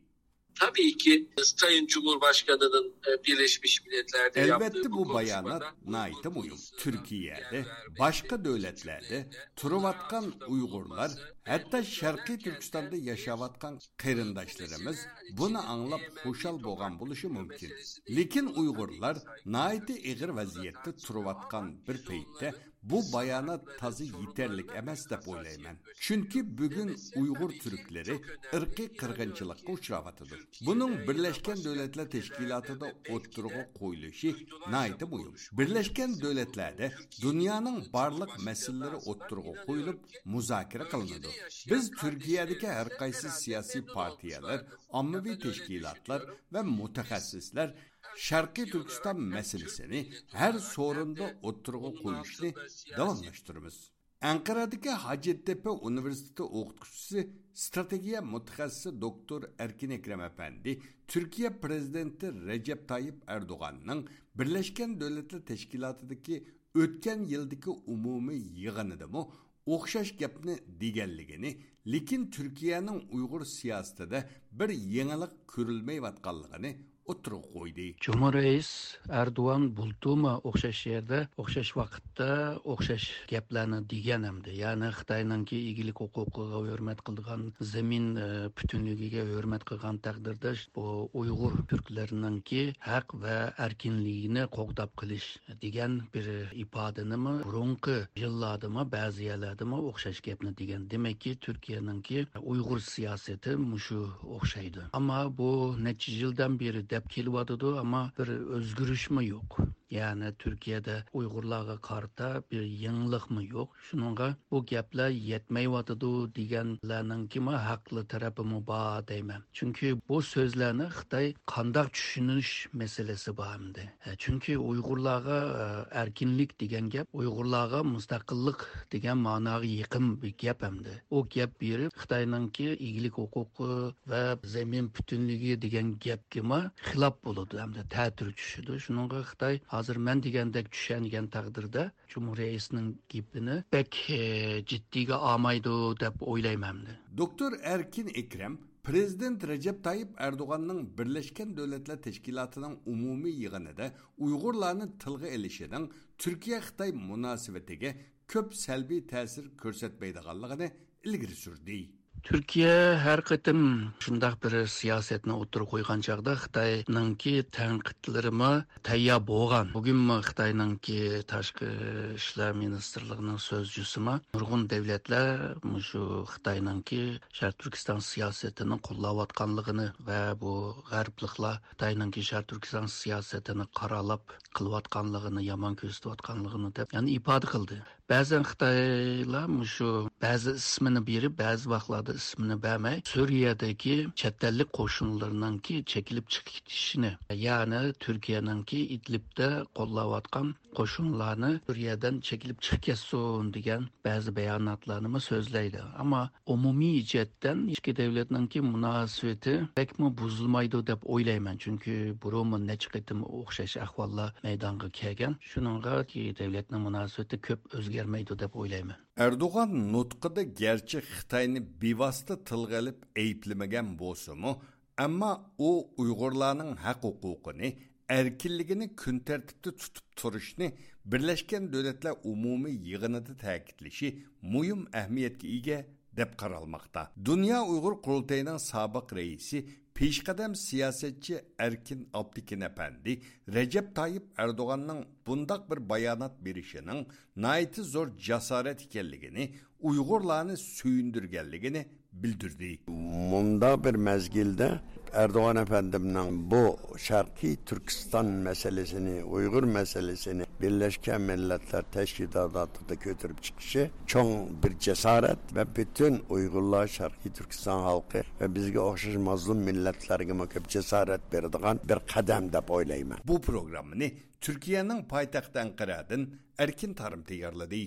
Tabii ki Sayın Cumhurbaşkanı'nın e, Birleşmiş Milletler'de ئەلۋەتتە، بۇ بايانات ناھايىتى مۇھىم. تۈركىيەدە، باشقا دۆلەتلەردە تۇرۇۋاتقان ئۇيغۇرلار، ھەتتا شەرقىي تۈركىستاندا ياشاۋاتقان قېرىنداشلىرىمىز بۇنى ئاڭلاپ خۇشال بولغان بولۇشى مۇمكىن. لېكىن ئۇيغۇرلار ناھايىتى ئېغىر ۋەزىيەتتە تۇرۇۋاتقان بىر پەيتتە بۇ بايانات تازا يېتەرلىك ئەمەس دەپ ئويلايمەن. چۈنكى بۈگۈن ئۇيغۇر تۈركلىرى ئىرقىي قىرغىنچىلىققا ئۇچراۋاتىدۇ. بۇنىڭ بىرلەشكەن دۆلەتلەر تەشكىلاتىدا ئوتتۇرىغا قويۇلۇشى ناھايىتى مۇھىم. بىرلەشكەن دۆلەتلەردە دۇنيانىڭ بارلىق مەسىلىلىرى ئوتتۇرىغا قويۇلۇپ، مۇزاكىرە قىلىنىدۇ. بىز تۈركىيەدىكى ھەر قايسى سىياسىي پارتىيەلەر، ئاممىۋى تەشكىلاتلار ۋە مۇتەخەسسىسلەر شەرقىي تۈركىستان مەسىلىسىنى ھەر سورۇندا ئوتتۇرىغا قويۇشنى داۋاملاشتۇرىمىز. ئەنقەرەدىكى ھاجەتتېپە ئۇنىۋېرسىتېتى ئوقۇتقۇچىسى، ئىستراتېگىيە مۇتەخەسسىسى دوكتور ئەركىن ئەكرەم ئەپەندى تۈركىيە پىرېزىدېنتى رەجەپ تايىپ ئەردوغاننىڭ بىرلەشكەن دۆلەتلەر تەشكىلاتىدىكى ئۆتكەن يىلدىكى ئومۇمىي يىغىنىدىمۇ ئوخشاش گەپنى دېگەنلىكىنى، لېكىن تۈركىيەنىڭ ئۇيغۇر سىياسىتىدە بىر يېڭىلىق كۆرۈلمەيۋاتقانلىقىنى ئوتتۇرىغا قويدى. جۇمھۇر رەئىس ئەردوغان بۇلتۇرمۇ ئوخشاش يەردە، ئوخشاش ۋاقىتتا ئوخشاش گەپلەرنى دېگەن ئەمدى. يەنى خىتاينىڭكى ئىگىلىك ھوقۇقىغا ھۆرمەت قىلىدىغان، زېمىن، ئە، پۈتۈنلۈكىگە ھۆرمەت قىلغان تەقدىردە، بۇ ئۇيغۇر تۈركلىرىنىڭكى ھەق ۋە ئەركىنلىكىنى قوغداپ قېلىش دېگەن بىر ئىپادىنىمۇ بۇرۇنقى يىللاردىمۇ بەزى يەرلەردىمۇ ئوخشاش گەپنى دېگەن. دېمەككى، تۈركىيەنىڭكى ئۇيغۇر سىياسىتى مۇشۇ ئوخشايدۇ. ئەمما بۇ نەچچە يىلدىن بېرى دەپ كېلىۋاتىدۇ، ئەمما بىر ئۆزگىرىشمۇ يوق. يەنى تۈركىيەدە ئۇيغۇرلارغا قارىتا بىر يېڭىلىقمۇ يوق. شۇنىڭغا بۇ گەپلەر يەتمەيۋاتىدۇ دېگەنلەرنىڭكىمۇ ھەقلىق تەرىپىمۇ بار دەيمەن. چۈنكى بۇ سۆزلەرنى خىتاي قانداق چۈشىنىش مەسىلىسى بار ئەمدى. ئە، چۈنكى ئۇيغۇرلارغا، ئە، ئەركىنلىك دېگەن گەپ، ئۇيغۇرلارغا مۇستەقىللىق دېگەن ماناغا يېقىن بىر گەپ ئەمدى. ئۇ گەپ بېرىپ خىتاينىڭكى ئىگىلىك ھوقۇقى ۋە زېمىن پۈتۈنلۈكى دېگەن گەپكىمۇ خىلاپ بولىدۇ ھەمدە تەتۈر چۈشىدۇ. شۇنىڭغا خىتاي ھازىر مەن دېگەندەك چۈشەنگەن تەقدىردە، جۇمھۇر رەئىسنىڭ گېپىنى بەك، ئە، جىددىيگە ئالمايدۇ دەپ ئويلايمەن ئەمدى. دوكتور ئەركىن ئەكرەم پىرېزىدېنت رەجەپ تايىپ ئەردوغاننىڭ بىرلەشكەن دۆلەتلەر تەشكىلاتىنىڭ ئومۇمىي يىغىنىدا ئۇيغۇرلارنى تىلغا ئېلىشىنىڭ تۈركىيە-خىتاي مۇناسىۋىتىگە كۆپ سەلبىي تەسىر كۆرسەتمەيدىغانلىقىنى ئىلگىرى سۈردى. تۈركىيە ھەر قېتىم شۇنداق بىر سىياسەتنى ئوتتۇرىغا قويغان چاغدا خىتاينىڭكى تەنقىدلىرىمۇ تەييار بولغان. بۈگۈنمۇ خىتاينىڭكى تاشقى ئىشلار مىنىستىرلىقىنىڭ سۆزچىسىمۇ نۇرغۇن دۆلەتلەر مۇشۇ خىتاينىڭكى شەرقىي تۈركىستان سىياسىتىنى قوللاۋاتقانلىقىنى ۋە بۇ غەربلىكلەر خىتاينىڭكى شەرقىي تۈركىستان سىياسىتىنى قارالاپ قىلىۋاتقانلىقىنى، يامان كۆرسىتىۋاتقانلىقىنى دەپ، يەنى ئىپادە قىلدى. بەزەن خىتايلار مۇشۇ بەزى ئىسمىنى بېرىپ، بەزى ۋاقىتلاردا ئىسمىنى بەرمەي، سۈرىيەدىكى چەت ئەللىك قوشۇنلىرىنىڭكى چېكىنىپ چىقىپ كېتىشىنى، يەنى تۈركىيەنىڭكى ئىدلىبتە قوللاۋاتقان قوشۇنلارنى سۈرىيەدىن چېكىنىپ چىقىپ كەتسۇن دېگەن بەزى باياناتلارنىمۇ سۆزلەيدۇ. ئەمما ئومۇمىي جەھەتتىن ئىككى دۆلەتنىڭكى مۇناسىۋىتى بەكمۇ بۇزۇلمايدۇ دەپ ئويلايمەن، چۈنكى بۇرۇنمۇ نەچچە قېتىم ئوخشاش ئەھۋاللار مەيدانغا كەلگەن. شۇنىڭغا ئىككى دۆلەتنىڭ مۇناسىۋىتى كۆپ ئۆزگەرمەيدۇ دەپ ئويلايمەن. ئەردوغان نۇتقىدا گەرچە خىتاينى بىۋاسىتە تىلغا ئېلىپ ئەيىبلىمىگەن بولسىمۇ، ئەمما ئۇ ئۇيغۇرلارنىڭ ھەق ھوقۇقىنى، ئەركىنلىكىنى كۈن تەرتىپتە تۇتۇپ تۇرۇشنى بىرلەشكەن دۆلەتلەر ئومۇمىي يىغىنىدا تەكىتلىشى مۇھىم ئەھمىيەتكە ئىگە، دەپ قارالماقتا. دۇنيا ئۇيغۇر قۇرۇلتىيىنىڭ سابىق رەئىسى، پېشقەدەم سىياسەتچى ئەركىن ئابلىكىن ئەپەندى رەجەپ تايىپ ئەردوغاننىڭ بۇنداق بىر بايانات بېرىشىنىڭ ناھايىتى زور جاسارەت ئىكەنلىكىنى، ئۇيغۇرلارنى سۆيۈندۈرگەنلىكىنى بىلدۈردى. مۇنداق بىر مەزگىلدە ئەردوغان ئەپەندىمنىڭ بۇ شەرقىي تۈركىستان مەسىلىسىنى، ئۇيغۇر مەسىلىسىنى بىرلەشكەن مىللەتلەر تەشكىلاتىدا كۆتۈرۈپ چىقىشى چوڭ بىر جاسارەت ۋە پۈتۈن ئۇيغۇرلار، شەرقىي تۈركىستان خەلقى ۋە بىزگە ئوخشاش مەزلۇم مىللەتلەرگىمۇ كۆپ جاسارەت بېرىدىغان بىر قەدەم دەپ ئويلايمەن. بۇ پروگراممىنى تۈركىيەنىڭ پايتەختى ئەنقەرەدىن ئەركىن تارىم تەييارلىدى.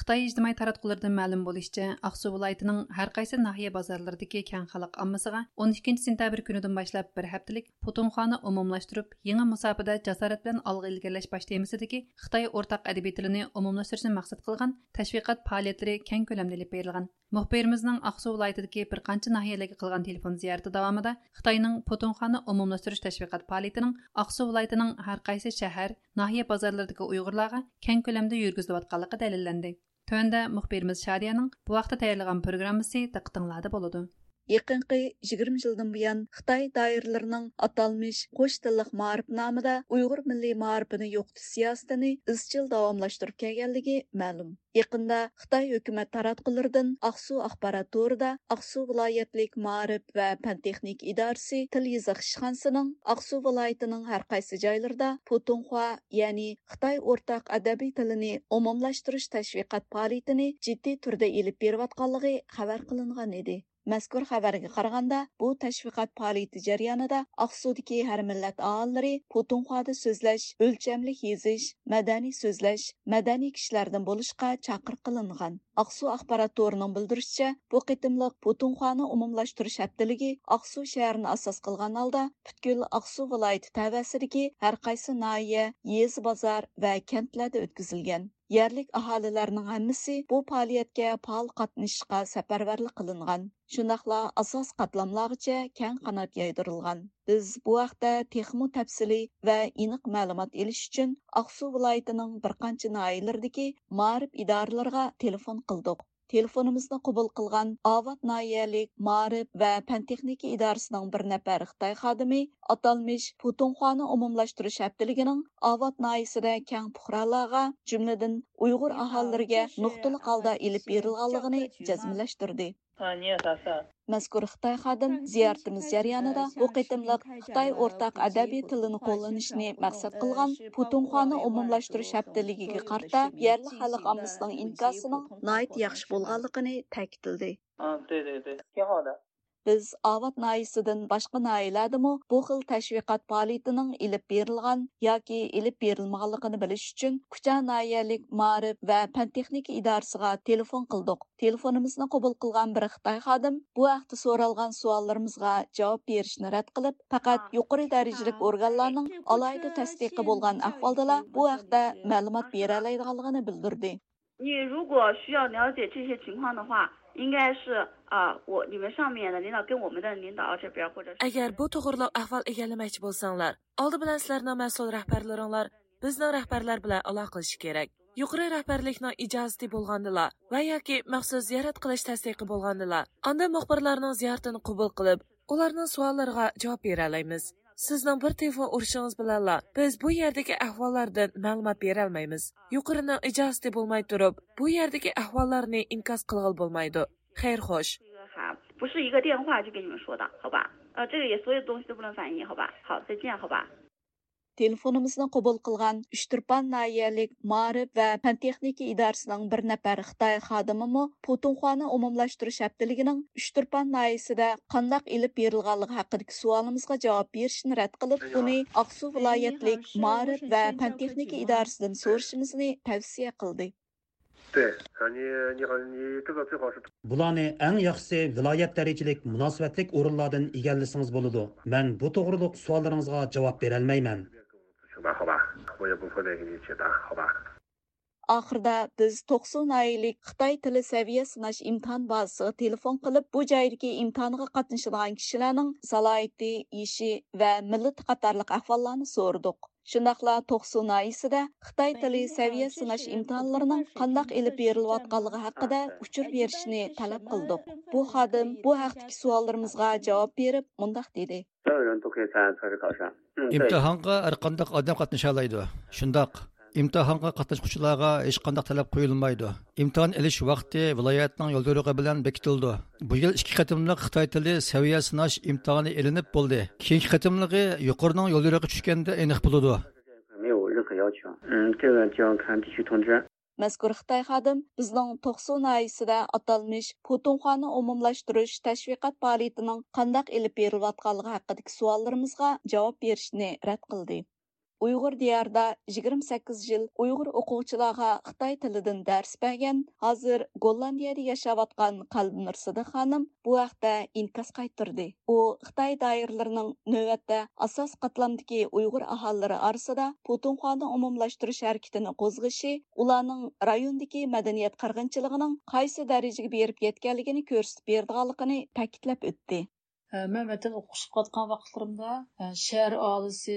خىتاي ئىجتىمائىي تاراتقۇلىرىدىن مەلۇم بولۇشىچە، ئاقسۇ ۋىلايىتىنىڭ ھەر قايسى ناھىيە بازارلىرىدىكى كەڭ خەلق ئاممىسىغا ئون ئىككىنچى سېنتەبىر كۈنىدىن باشلاپ بىر ھەپتىلىك پۇتۇمخانا ئومۇملاشتۇرۇپ، يېڭى مۇساپىدە جاسارەت بىلەن ئالغا ئىلگىرىلەش باش تېمىسىدىكى خىتاي ئورتاق ئەدەبىي تىلىنى ئومۇملاشتۇرۇشنى مەقسەت قىلغان تەشۋىقات پائالىيەتلىرى كەڭ كۆلەمدە ئېلىپ بېرىلغان. مۇخبىرىمىزنىڭ ئاقسۇ ۋىلايىتىدىكى بىر قانچە ناھىيەلەرگە قىلغان تېلېفون زىيارىتى داۋامىدا خىتاينىڭ پۇتۇمخانا ئومۇملاشتۇرۇش تەشۋىقات پائالىيىتىنىڭ ئاقسۇ ۋىلايىتىنىڭ ھەر قايسى شەھەر، ناھىيە بازارلىرىدىكى ئۇيغۇرلارغا كەڭ كۆلەمدە يۈرگۈزۈلۈۋاتقانلىقى دەلىللەندى. تۆۋەندە مۇخبىرىمىز شادىيەنىڭ بۇ ھەقتە تەييارلىغان پروگراممىسى دىققىتىڭلاردا بولىدۇ. يېقىنقى يىگىرمە يىلدىن بۇيان خىتاي دائىرىلىرىنىڭ ئاتالمىش قوش تىللىق مائارىپ نامىدا ئۇيغۇر مىللىي مائارىپىنى يوقىتىش سىياسىتىنى ئىزچىل داۋاملاشتۇرۇپ كەلگەنلىكى مەلۇم. يېقىندا خىتاي ھۆكۈمەت تاراتقۇلىرىدىن ئاقسۇ ئاخبارات تورىدا ئاقسۇ ۋىلايەتلىك مائارىپ ۋە پەن تېخنىكا ئىدارىسى تىل يېزىق ئىشخانىسىنىڭ ئاقسۇ ۋىلايىتىنىڭ ھەر قايسى جايلىرىدا پۇتۇڭخۇا، يەنى خىتاي ئورتاق ئەدەبىي تىلىنى ئومۇملاشتۇرۇش تەشۋىقات پائالىيىتىنى جىددىي تۈردە ئېلىپ بېرىۋاتقانلىقى خەۋەر قىلىنغان ئىدى. مەزكۇر خەۋەرگە قارىغاندا، بۇ تەشۋىقات پائالىيىتى جەريانىدا ئاقسۇدىكى ھەر مىللەت ئاھالىلىرى پۇتۇڭخۇادا سۆزلەش، ئۆلچەملىك يېزىش، مەدەنىي سۆزلەش، مەدەنىي كىشىلەردىن بولۇشقا چاقىرىق قىلىنغان. ئاقسۇ ئاخبارات تورىنىڭ بىلدۈرۈشىچە، بۇ قېتىملىق پۇتۇڭخوانى ئومۇملاشتۇرۇش ھەپتىلىكى ئاقسۇ شەھىرىنى ئاساس قىلغان ھالدا پۈتكۈل ئاقسۇ ۋىلايىتى تەۋەسىدىكى ھەر قايسى ناھىيە، يېزا، بازار ۋە كەنتلەردە ئۆتكۈزۈلگەن. يەرلىك ئاھالىلەرنىڭ ھەممىسى بۇ پائالىيەتكە پائال قاتنىشىشقا سەپەرۋەرلىك قىلىنغان. شۇنداقلا ئاساسىي قاتلاملارغىچە كەڭ قانات يايدۇرۇلغان. بىز بۇ ھەقتە تېخىمۇ تەپسىلىي ۋە ئېنىق مەلۇمات ئېلىش ئۈچۈن ئاقسۇ ۋىلايىتىنىڭ بىر قانچە ناھىيەلىرىدىكى مائارىپ ئىدارىلىرىغا تېلېفون قىلدۇق. تېلېفونىمىزنى قوبۇل قىلغان ئاۋات ناھىيەلىك مائارىپ ۋە پەن تېخنىكا ئىدارىسىنىڭ بىر نەپەر خىتاي خادىمى ئاتالمىش پۇتۇڭخوانى ئومۇملاشتۇرۇش ھەپتىلىكىنىڭ ئاۋات ناھىيەسىدە كەڭ پۇقرالارغا، جۈملىدىن ئۇيغۇر ئاھالىلىرىگە نۇقتىلىق ھالدا ئېلىپ بېرىلغانلىقىنى جەزملەشتۈردى. مەزكۇر خىتاي خادىم زىيارىتىمىز جەريانىدا بۇ قېتىملىق خىتاي ئورتاق ئەدەبىي تىلىنى قوللىنىشنى مەقسەت قىلغان پۇتۇڭخوانى ئومۇملاشتۇرۇش ھەپتىلىكىگە قارىتا يەرلىك خەلق ئاممىسىنىڭ ئىنكاسىنىڭ ناھايىتى ياخشى بولغانلىقىنى تەكىتلىدى. 嗯，对对对，挺好的。 بىز ئاۋات ناھىيىسىدىن باشقا ناھىيەلەردىمۇ بۇ خىل تەشۋىقات پائالىيىتىنىڭ ئېلىپ بېرىلغان ياكى ئېلىپ بېرىلمىغانلىقىنى بىلىش ئۈچۈن، كۇچا ناھىيەلىك مائارىپ ۋە پەن تېخنىكا ئىدارىسىغا تېلېفون قىلدۇق. تېلېفونىمىزنى قوبۇل قىلغان بىر خىتاي خادىم بۇ ھەقتە سورالغان سوئاللىرىمىزغا جاۋاب بېرىشنى رەت قىلىپ، پەقەت يۇقىرى دەرىجىلىك ئورگانلارنىڭ ئالاھىدە تەستىقى بولغان ئەھۋالدىلا بۇ ھەقتە مەلۇمات بېرەلەيدىغانلىقىنى بىلدۈردى. 你如果需要了解这些情况的话，应该是啊，我你们上面的领导跟我们的领导这边，或者是 ئەگەر بۇ توغرىلىق ئەھۋال ئىگىلىمەكچى بولساڭلار، ئالدى بىلەن سىلەرنىڭ مەسئۇل رەھبەرلىرىڭلار بىزنىڭ رەھبەرلەر بىلەن ئالاقىلىشىشى كېرەك. يۇقىرى رەھبەرلىكنىڭ ئىجازىتى بولغاندىلا ۋە ياكى مەخسۇس زىيارەت قىلىش تەستىقى بولغاندىلا، ئاندىن مۇخبىرلارنىڭ زىيارىتىنى قوبۇل قىلىپ، ئۇلارنىڭ سوئاللىرىغا جاۋاب بېرەلەيمىز. سىزنىڭ بىر تېلېفون ئۇرۇشىڭىز بىلەنلا بىز بۇ يەردىكى ئەھۋاللاردىن مەلۇمات بېرەلمەيمىز. يۇقىرىنىڭ ئىجازىتى بولماي تۇرۇپ، بۇ يەردىكى ئەھۋاللارنى ئىنكاس قىلغىلى بولمايدۇ. خەير خوش. 不是一个电话就跟你们说的，好吧？呃，这个也所有东西都不能反映，好吧？好，再见，好吧？ تېلېفونىمىزنى قوبۇل قىلغان ئۇچتۇرپان ناھىيەلىك مائارىپ ۋە پەن تېخنىكا ئىدارىسىنىڭ بىر نەپەر خىتاي خادىمىمۇ پۇتۇڭخوانى ئومۇملاشتۇرۇش ھەپتىلىكىنىڭ ئۇچتۇرپان ناھىيەسىدە قانداق ئېلىپ بېرىلغانلىقى ھەققىدىكى سوئالىمىزغا جاۋاب بېرىشنى رەت قىلىپ، ئۇنى ئاقسۇ ۋىلايەتلىك مائارىپ ۋە پەن تېخنىكا ئىدارىسىدىن سورىشىمىزنى تەۋسىيە قىلدى. 对，啊，你你好，你这个最好是 بۇلارنى ئەڭ ياخشىسى ۋىلايەت دەرىجىلىك مۇناسىۋەتلىك ئورۇنلاردىن ئىگىلىسىڭىز بولىدۇ. مەن بۇ توغرۇلۇق سوئاللىرىڭىزغا جاۋاب بېرەلمەيمەن. 好吧，好吧，我也不会那个你解答，好吧。 ئاخىرىدا بىز توقسۇ ناھىيەلىك خىتاي تىلى سەۋىيە سىناش ئىمتىھان بازىسىغا تېلېفون قىلىپ، بۇ جايدىكى ئىمتىھانغا قاتنىشىدىغان كىشىلەرنىڭ سالاھىيىتى، يېشى ۋە مىللىتى قاتارلىق ئەھۋاللارنى سورىدۇق. شۇنداقلا توقسۇ ناھىيەسىدە خىتاي تىلى سەۋىيە سىناش ئىمتىھانلىرىنىڭ قانداق ئېلىپ بېرىلىۋاتقانلىقى ھەققىدە ئۇچۇر بېرىشنى تەلەپ قىلدۇق. بۇ خادىم بۇ ھەقتىكى سوئاللىرىمىزغا جاۋاب بېرىپ مۇنداق دېدى. 所有人都可以参加测试考试。嗯，对。 ئىمتىھانغا ھەر قانداق ئادەم قاتنىشالايدۇ. شۇنداق. ئىمتىھانغا قاتناشقۇچىلارغا ھېچقانداق تەلەپ قويۇلمايدۇ. ئىمتىھان ئېلىش ۋاقتى ۋىلايەتنىڭ يوليورۇقى بىلەن بېكىتىلىدۇ. بۇ يىل ئىككى قېتىملىق خىتاي تىلى سەۋىيە سىناش ئىمتىھانى ئېلىنىپ بولدى. كېيىنكى قېتىملىقى يۇقىرىنىڭ يوليورۇقى چۈشكەندە ئېنىق بولىدۇ. 没有任何要求。嗯，这个就要看地区通知。 مەزكۇر خىتاي خادىم بىزنىڭ توقسۇ ناھىيەسىدە ئاتالمىش پۇتۇڭخوانى ئومۇملاشتۇرۇش تەشۋىقات پائالىيىتىنىڭ قانداق ئېلىپ بېرىلىۋاتقانلىقى ھەققىدىكى سوئاللىرىمىزغا جاۋاب بېرىشنى رەت قىلدى. ئۇيغۇر دىيارىدا يىگىرمە سەككىز يىل ئۇيغۇر ئوقۇغۇچىلارغا خىتاي تىلىدىن دەرس بەرگەن، ھازىر گوللاندىيەدە ياشاۋاتقان قەلبىنۇر سىدىق خانىم بۇ ھەقتە ئىنكاس قايتۇردى. ئۇ خىتاي دائىرىلىرىنىڭ نۆۋەتتە ئاساسىي قاتلامدىكى ئۇيغۇر ئاھالىلىرى ئارىسىدا پۇتۇنخۋانى ئومۇملاشتۇرۇش ھەرىكىتىنى قوزغىشى، ئۇلارنىڭ رايوندىكى مەدەنىيەت قىرغىنچىلىقىنىڭ قايسى دەرىجىگە بېرىپ يەتكەنلىكىنى كۆرسىتىپ بېرىدىغانلىقىنى تەكىتلەپ ئۆتتى. مەن ۋەتەندە ئوقۇشقا قاتقان ۋاقىتلىرىمدا، شەھەر ئاھالىسى،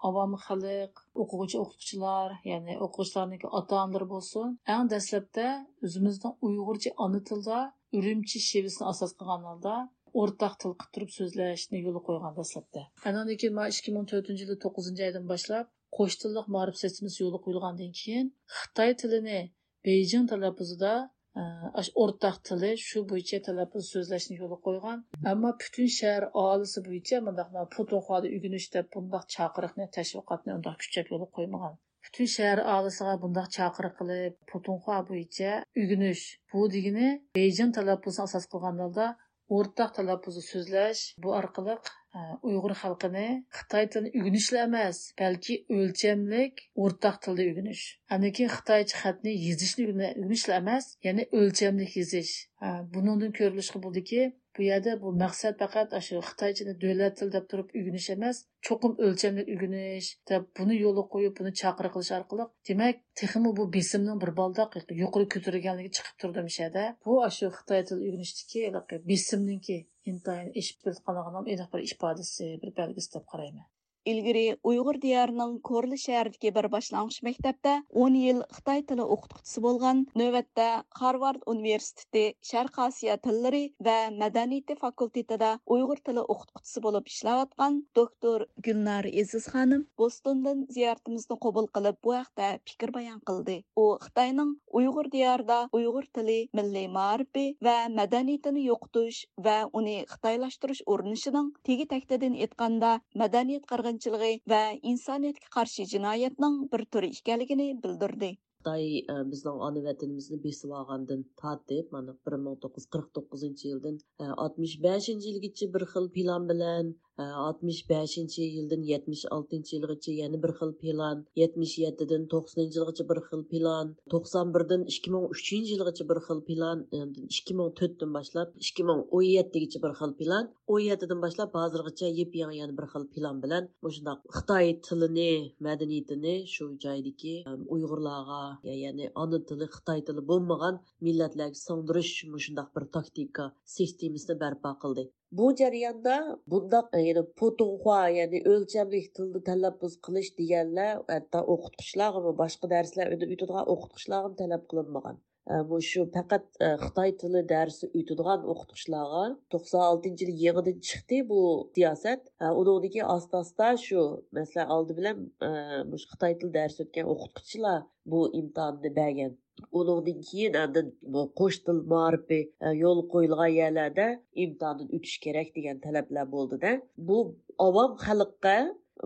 ئاۋام خەلق، ئوقۇغۇچى، ئوقۇتقۇچىلار، يەنى ئوقۇغۇچىلارنىڭكى ئاتا-ئانىلىرى بولسۇن، ئەڭ دەسلەپتە ئۆزىمىزنىڭ ئۇيغۇرچە ئانا تىلدا ئۈرۈمچى شېۋىسىنى ئاساس قىلغان ھالدا ئورتاق تىل قىلىپ تۇرۇپ سۆزلەشنى يولغا قويغان دەسلەپتە. ئاندىن كېيىن مانا ئىككى مىڭ تۆتىنچى يىلى توققۇزىنچى ئايدىن باشلاپ قوش تىللىق مائارىپ سىستېمىسى يولغا قويۇلغاندىن كېيىن خىتاي تىلىنى بېيجىڭ تەلەپپۇزىدا، ئە، ئاش-، ئورتاق تىلى شۇ بويىچە تەلەپپۇز سۆزلەشنى يولغا قويغان. ئەمما پۈتۈن شەھەر ئاھالىسى بويىچە مۇنداق مانا پۇتۇنخۋادا ئۆگىنىش دەپ بۇنداق چاقىرىقنى، تەشۋىقاتنى ئۇنداق كۈچەپ يولغا قويمىغان. پۈتۈن شەھەر ئاھالىسىغا بۇنداق چاقىرىق قىلىپ، پۇتۇنخوا بويىچە ئۆگىنىش، بۇ دېگىنى بېيجىڭ تەلەپپۇزىنى ئاساس قىلغان ھالدا ئورتاق تەلەپپۇزدا سۆزلەش، بۇ ئارقىلىق، ئە، ئۇيغۇر خەلقىنى خىتاي تىلىنى ئۆگىنىشلا ئەمەس، بەلكى ئۆلچەملىك ئورتاق تىلدا ئۆگىنىش، ئاندىن كېيىن خىتايچە خەتنى يېزىشنى ئۆگىنە-، ئۆگىنىشلا ئەمەس، يەنى ئۆلچەملىك يېزىش. ئە، بۇنىڭدىن كۆرۈلۈشكە بولىدۇكى، بۇ يەردە بۇ مەقسەت پەقەت ئاشۇ خىتايچىنى دۆلەت تىلى دەپ تۇرۇپ ئۆگىنىش ئەمەس، چوقۇم ئۆلچەملىك ئۆگىنىش دەپ بۇنى يولغا قويۇپ، بۇنى چاقىرىق قىلىش ئارقىلىق، دېمەك، تېخىمۇ بۇ بېسىمنىڭ بىر بالداق يۇقىرى كۆتۈرۈلگەنلىكى چىقىپ تۇرىدۇ مۇشۇ يەردە. بۇ ئاشۇ خىتاي تىلى ئۆگىنىشتىكى ھېلىقى بېسىمنىڭكى ئىنتايىن ئېشىپ كېلىۋاتقانلىقىنىڭ ئېنىق بىر ئىپادىسى، بىر بەلگىسى دەپ قارايمەن. ئىلگىرى ئۇيغۇر دىيارىنىڭ كورلا شەھىرىدىكى بىر باشلانغۇچ مەكتەپتە ئون يىل خىتاي تىلى ئوقۇتقۇچىسى بولغان، نۆۋەتتە خارۋارد ئۇنىۋېرسىتېتى شەرقىي ئاسىيا تىللىرى ۋە مەدەنىيىتى فاكۇلتېتىدا ئۇيغۇر تىلى ئوقۇتقۇچىسى بولۇپ ئىشلەۋاتقان دوكتور گۈلنار ئېزىز خانىم بوستوندىن زىيارىتىمىزنى قوبۇل قىلىپ، بۇ ھەقتە پىكىر بايان قىلدى. ئۇ خىتاينىڭ ئۇيغۇر دىيارىدا ئۇيغۇر تىلى، مىللىي مائارىپى ۋە مەدەنىيىتىنى يوقىتىش ۋە ئۇنى خىتايلاشتۇرۇش ئۇرۇنۇشىنىڭ، تېگى تەكتىدىن ئېيتقاندا، مەدەنىيەت قىرغىنچىلىقى ۋە ئىنسانىيەتكە قارشى جىنايەتنىڭ بىر تۈرى ئىكەنلىكىنى بىلدۈردى. خىتاي، ئە، بىزنىڭ ئانا ۋەتىنىمىزنى بېسىۋالغاندىن تارتىپ، مانا، بىر مىڭ توققۇز يۈز قىرىق توققۇزىنچى يىلدىن، ئە، ئاتمىش بەشىنچى يىلغىچە بىر خىل پىلان بىلەن، ئە، ئاتمىش بەشىنچى يىلدىن يەتمىش ئالتىنچى يىلغىچە يەنە بىر خىل پىلان، يەتمىش يەتتىدىن توقسىنىنچى يىلغىچە بىر خىل پىلان، توقسان بىردىن ئىككى مىڭ ئۈچىنچى يىلغىچە بىر خىل پىلان، ئاندىن ئىككى مىڭ تۆتتىن باشلاپ ئىككى مىڭ ئون يەتتىگىچە بىر خىل پىلان، ئون يەتتىدىن باشلاپ ھازىرغىچە يېپيېڭى يەنە بىر خىل پىلان بىلەن مۇشۇنداق خىتاي تىلىنى، مەدەنىيىتىنى شۇ جايدىكى، ئەم، ئۇيغۇرلارغا، يە-، يەنى ئانا تىلى خىتاي تىلى بولمىغان مىللەتلەرگە سىڭدۈرۈش مۇشۇنداق بىر تاكتىكا سىستېمىسىنى بەرپا قىلدى. بۇ جەرياندا بۇنداق، يەنى پۇتۇڭخۇا، يەنى ئۆلچەملىك تىلدا تەلەپپۇز قىلىش دېگەنلەر ھەتتا ئوقۇتقۇچىلارغىمۇ، باشقا دەرسلەر ئۆتىدىغان ئوقۇتقۇچىلارغىمۇ تەلەپ قىلىنمىغان. ئە، مۇشۇ پەقەت، ئە، خىتاي تىلى دەرسى ئۆتىدىغان ئوقۇتقۇچىلارغا توقسان ئالتىنچى يىلى يېڭىدىن چىقتى بۇ سىياسەت. ئە، ئۇنىڭدىن كېيىن ئاستا-ئاستا شۇ، مەسىلەن، ئالدى بىلەن، ئە، مۇشۇ خىتاي تىلى دەرسى ئۆتكەن ئوقۇتقۇچىلار بۇ ئىمتىھاننى بەرگەن. ئۇنىڭدىن كېيىن ئاندىن بۇ قوش تىل مائارىپى، ئە، يولغا قويۇلغان يەرلەردە ئىمتىھاندىن ئۆتۈش كېرەك دېگەن تەلەپلەر بولدى-دە. بۇ ئاۋام خەلققە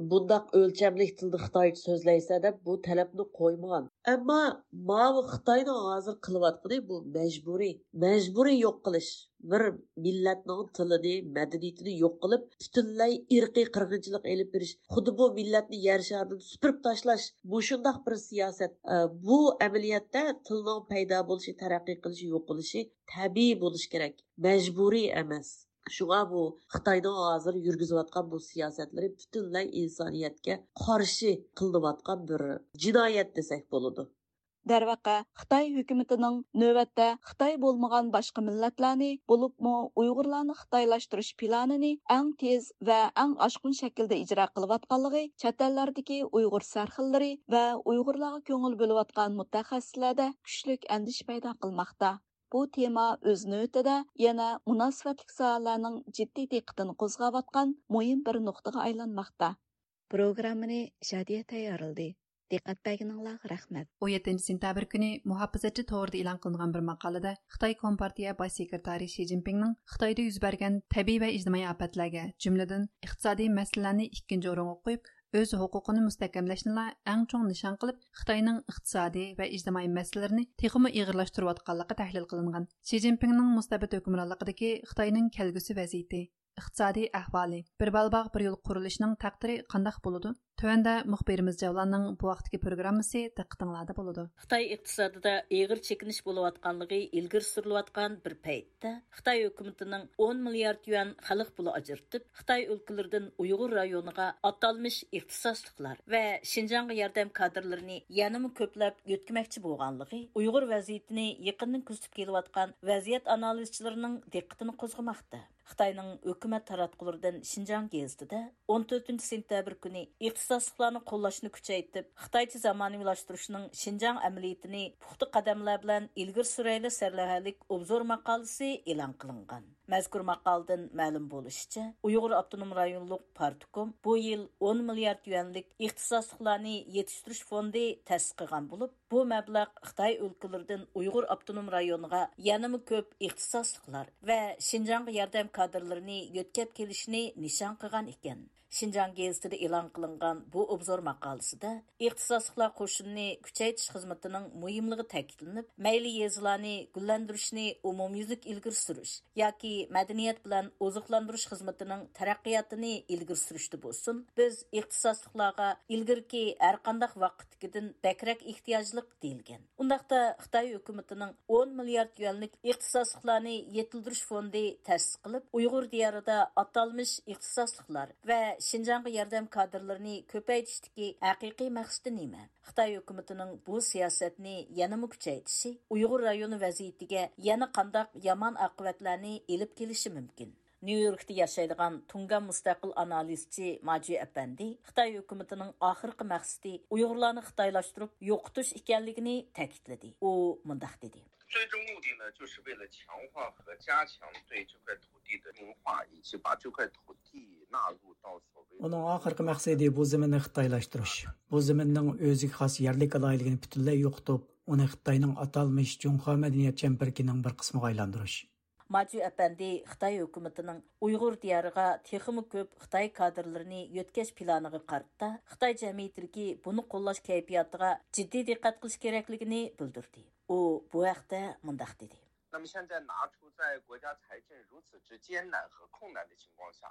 بۇنداق ئۆلچەملىك تىلدا خىتايچە سۆزلەيسەن دەپ بۇ تەلەپنى قويمىغان. ئەمما ماۋۇ خىتاينىڭ ھازىر قىلىۋاتقىنى بۇ مەجبۇرىي، مەجبۇرىي يوق قىلىش. بىر مىللەتنىڭ تىلىنى، مەدەنىيىتىنى يوق قىلىپ، پۈتۈنلەي ئىرقىي قىرغىنچىلىق ئېلىپ بېرىش، خۇددى بۇ مىللەتنى يەر شارىدىن سۈپۈرۈپ تاشلاش، مۇشۇنداق بىر سىياسەت. ئە، بۇ ئەمەلىيەتتە تىلنىڭ پەيدا بولۇشى، تەرەققىي قىلىشى، يوقىلىشى تەبىئىي بولۇشى كېرەك، مەجبۇرىي ئەمەس. شۇڭا بۇ خىتاينىڭ ھازىر يۈرگۈزۈۋاتقان بۇ سىياسەتلىرى پۈتۈنلەي ئىنسانىيەتكە قارشى قىلىنىۋاتقان بىر جىنايەت دېسەك بولىدۇ. دەرۋەقە، خىتاي ھۆكۈمىتىنىڭ نۆۋەتتە خىتاي بولمىغان باشقا مىللەتلەرنى، بولۇپمۇ ئۇيغۇرلارنى خىتايلاشتۇرۇش پىلانىنى ئەڭ تېز ۋە ئەڭ ئاشقۇن شەكىلدە ئىجرا قىلىۋاتقانلىقى چەت ئەللەردىكى ئۇيغۇر سەرخىللىرى ۋە ئۇيغۇرلارغا كۆڭۈل بۆلۈۋاتقان مۇتەخەسسىسلەردە كۈچلۈك ئەندىشە پەيدا قىلماقتا. بۇ تېما ئۆز نۆۋىتىدە يەنە مۇناسىۋەتلىك ساھەلەرنىڭ جىددىي دىققىتىنى قوزغاۋاتقان مۇھىم بىر نۇقتىغا ئايلانماقتا. پروگراممىنى شادىيە تەييارلىدى. دىققەت بەرگىنىڭلارغا رەھمەت. ئون يەتتىنچى سېنتەبىر كۈنى مۇھاپىزەتچى تورىدا ئېلان قىلىنغان بىر ماقالىدە خىتاي كومپارتىيە باش سېكرېتارى شى جىنپىڭنىڭ خىتايدا يۈز بەرگەن تەبىئىي ۋە ئىجتىمائىي ئاپەتلەرگە، جۈملىدىن ئىقتىسادىي مەسىلىلەرنى ئىككىنچى ئورۇنغا قويۇپ، ئۆز ھوقۇقىنى مۇستەھكەملەشنىلا ئەڭ چوڭ نىشان قىلىپ، خىتاينىڭ ئىقتىسادىي ۋە ئىجتىمائىي مەسىلىلىرىنى تېخىمۇ ئېغىرلاشتۇرۇۋاتقانلىقى تەھلىل قىلىنغان. شى جىنپىڭنىڭ مۇستەبىت ھۆكۈمرانلىقىدىكى خىتاينىڭ كەلگۈسى ۋەزىيىتى، ئىقتىسادىي ئەھۋالى، بىر بالىباغ بىر يول قۇرۇلۇشىنىڭ تەقدىرى قانداق بولىدۇ؟ تۆۋەندە مۇخبىرىمىز جەۋلاننىڭ بۇ ۋاقىتتىكى پروگراممىسى دىققىتىڭلاردا بولىدۇ. خىتاي ئىقتىسادىدا ئېغىر چېكىنىش بولۇۋاتقانلىقى ئىلگىرى سۈرۈلۈۋاتقان بىر پەيتتە، خىتاي ھۆكۈمىتىنىڭ ئون مىليارد يۈەن خەلق پۇلى ئاجرىتىپ، خىتاي ئۆلكىلىرىدىن ئۇيغۇر رايونىغا ئاتالمىش ئىختىساسلىقلار ۋە شىنجاڭغا ياردەم كادىرلىرىنى يەنىمۇ كۆپلەپ يۆتكىمەكچى بولغانلىقى ئۇيغۇر ۋەزىيىتىنى يېقىندىن كۆزىتىپ كېلىۋاتقان ۋەزىيەت ئانالىزچىلىرىنىڭ دىققىتىنى قوزغىماقتا. خىتاينىڭ ھۆكۈمەت تاراتقۇلىرىدىن شىنجاڭ گېزىتىدە ئون تۆتىنچى سېنتەبىر كۈنى ئىختىساسلىقلارنى قوللاشنى كۈچەيتىپ، خىتايچە زامانىۋىلاشتۇرۇشنىڭ شىنجاڭ ئەمەلىيىتىنى پۇختا قەدەملەر بىلەن ئىلگىرى سۈرەيلى سەرلەۋھەلىك ئوبزور ماقالىسى ئېلان قىلىنغان. مەزكۇر ماقالىدىن مەلۇم بولۇشىچە، ئۇيغۇر ئاپتونوم رايونلۇق پارتكوم بۇ يىل ئون مىليارد يۈەنلىك ئىختىساسلىقلارنى يېتىشتۈرۈش فوندى تەسىس قىلغان بولۇپ، بۇ مەبلەغ خىتاي ئۆلكىلىرىدىن ئۇيغۇر ئاپتونوم رايونىغا يەنىمۇ كۆپ ئىختىساسلىقلار ۋە شىنجاڭغا ياردەم كادىرلىرىنى يۆتكەپ كېلىشىنى نىشان قىلغان ئىكەن. شىنجاڭ گېزىتىدە ئېلان قىلىنغان بۇ ئوبزور ماقالىسىدە ئىختىساسلىقلار قوشۇنىنى كۈچەيتىش خىزمىتىنىڭ مۇھىملىقى تەكىتلىنىپ، مەيلى يېزىلارنى گۈللەندۈرۈشنى ئومۇميۈزلۈك ئىلگىرى سۈرۈش ياكى مەدەنىيەت بىلەن ئوزۇقلاندۇرۇش خىزمىتىنىڭ تەرەققىياتىنى ئىلگىرى سۈرۈشتە بولسۇن، بىز ئىختىساسلىقلارغا ئىلگىرىكى ھەرقانداق ۋاقىتتىكىدىن بەكرەك ئېھتىياجلىق، دېيىلگەن. ئۇنداقتا خىتاي ھۆكۈمىتىنىڭ ئون مىليارد يۈەنلىك ئىختىساسلىقلارنى يېتىلدۈرۈش فوندى تەسىس قىلىپ، ئۇيغۇر دىيارىدا ئاتالمىش ئىختىساسلىقلار ۋە شىنجاڭغا ياردەم كادىرلىرىنى كۆپەيتىشتىكى ھەقىقىي مەقسىتى نېمە؟ خىتاي ھۆكۈمىتىنىڭ بۇ سىياسەتنى يەنىمۇ كۈچەيتىشى ئۇيغۇر رايونى ۋەزىيىتىگە يەنە قانداق يامان ئاقىۋەتلەرنى ئېلىپ كېلىشى مۇمكىن؟ نيۇ يوركتا ياشايدىغان تۇڭگان مۇستەقىل ئانالىزچى ماجۈ ئەپەندى خىتاي ھۆكۈمىتىنىڭ ئاخىرقى مەقسىتى ئۇيغۇرلارنى خىتايلاشتۇرۇپ يوقىتىش ئىكەنلىكىنى تەكىتلىدى. ئۇ مۇنداق دېدى. 最终目的呢，就是为了强化和加强对这块土地的净化，以及把这块土地纳入到所谓的 ئۇنىڭ ئاخىرقى مەقسىتى بۇ زېمىننى خىتايلاشتۇرۇش، بۇ زېمىننىڭ ئۆزىگە خاس يەرلىك ئالاھىدىلىكىنى پۈتۈنلەي يوقىتىپ، ئۇنى خىتاينىڭ ئاتالمىش جۇڭخۇا مەدەنىيەت چەمبىرىكىنىڭ بىر قىسمىغا ئايلاندۇرۇش. ماجۈ ئەپەندى خىتاي ھۆكۈمىتىنىڭ ئۇيغۇر دىيارىغا تېخىمۇ كۆپ خىتاي كادىرلىرىنى يۆتكەش پىلانىغا قارىتا، خىتاي جەمئىيىتىدىكى بۇنى قوللاش كەيپىياتىغا جىددىي دىققەت قىلىش كېرەكلىكىنى بىلدۈردى. ئۇ بۇ ھەقتە مۇنداق دېدى. 那么现在拿出在国家财政如此之艰难和困难的情况下，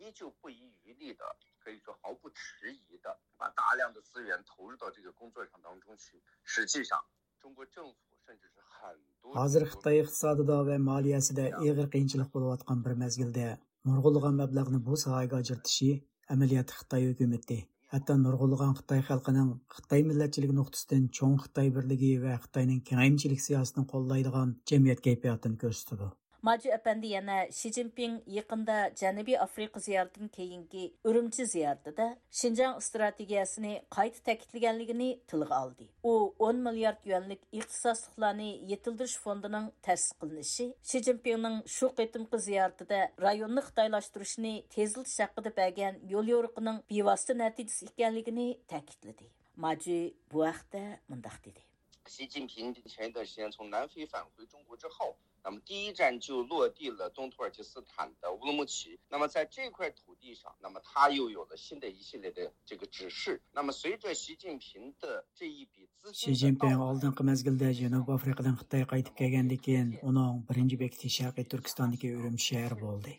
依旧不遗余力的，可以说毫不迟疑的把大量的资源投入到这个工作上当中去。实际上，中国政府甚至是很多 ھازىر خىتاي ئىقتىسادىدا ۋە مالىيەسىدە ئېغىر قىيىنچىلىق بولۇۋاتقان بىر مەزگىلدە نۇرغۇنلىغان مەبلەغنى بۇ ساھەگە ئاجرىتىشى ئەمەلىيەتتە خىتاي ھۆكۈمىتى، ھەتتا نۇرغۇنلىغان خىتاي خەلقىنىڭ خىتاي مىللەتچىلىكى نۇقتىسىدىن چوڭ خىتاي بىرلىكى ۋە خىتاينىڭ كېڭەيمىچىلىك سىياسىتىنى قوللايدىغان جەمئىيەت كەيپىياتىنى كۆرسىتىدۇ. ماجۈ ئەپەندى يەنە شى جىنپىڭ يېقىندا جەنۇبىي ئافرىقا زىيارىتىدىن كېيىنكى ئۈرۈمچى زىيارىتىدە شىنجاڭ ئىستراتېگىيەسىنى قايتا تەكىتلىگەنلىكىنى تىلغا ئالدى. ئۇ ئون مىليارد يۈەنلىك ئىختىساسلىقلارنى يېتىلدۈرۈش فوندىنىڭ تەسىس قىلىنىشى، شى جىنپىڭنىڭ شۇ قېتىمقى زىيارىتىدە رايوننى خىتايلاشتۇرۇشنى تېزلىتىش ھەققىدە بەرگەن يوليورۇقىنىڭ بىۋاسىتە نەتىجىسى ئىكەنلىكىنى تەكىتلىدى. ماجۈ بۇ ھەقتە مۇنداق دېدى. 习近平前一段时间从南非返回中国之后，那么第一站就落地了东土耳其斯坦的乌鲁木齐。那么在这块土地上，那么他又有了新的一系列的这个指示。那么随着习近平的这一笔资金的到来， شى جىنپىڭ ئالدىنقى مەزگىلدە جەنۇبىي ئافرىقىدىن خىتايغا قايتىپ كەلگەندىن كېيىن، ئۇنىڭ بىرىنچى بېكىتى شەرقىي تۈركىستاندىكى ئۈرۈمچى شەھىرى بولدى.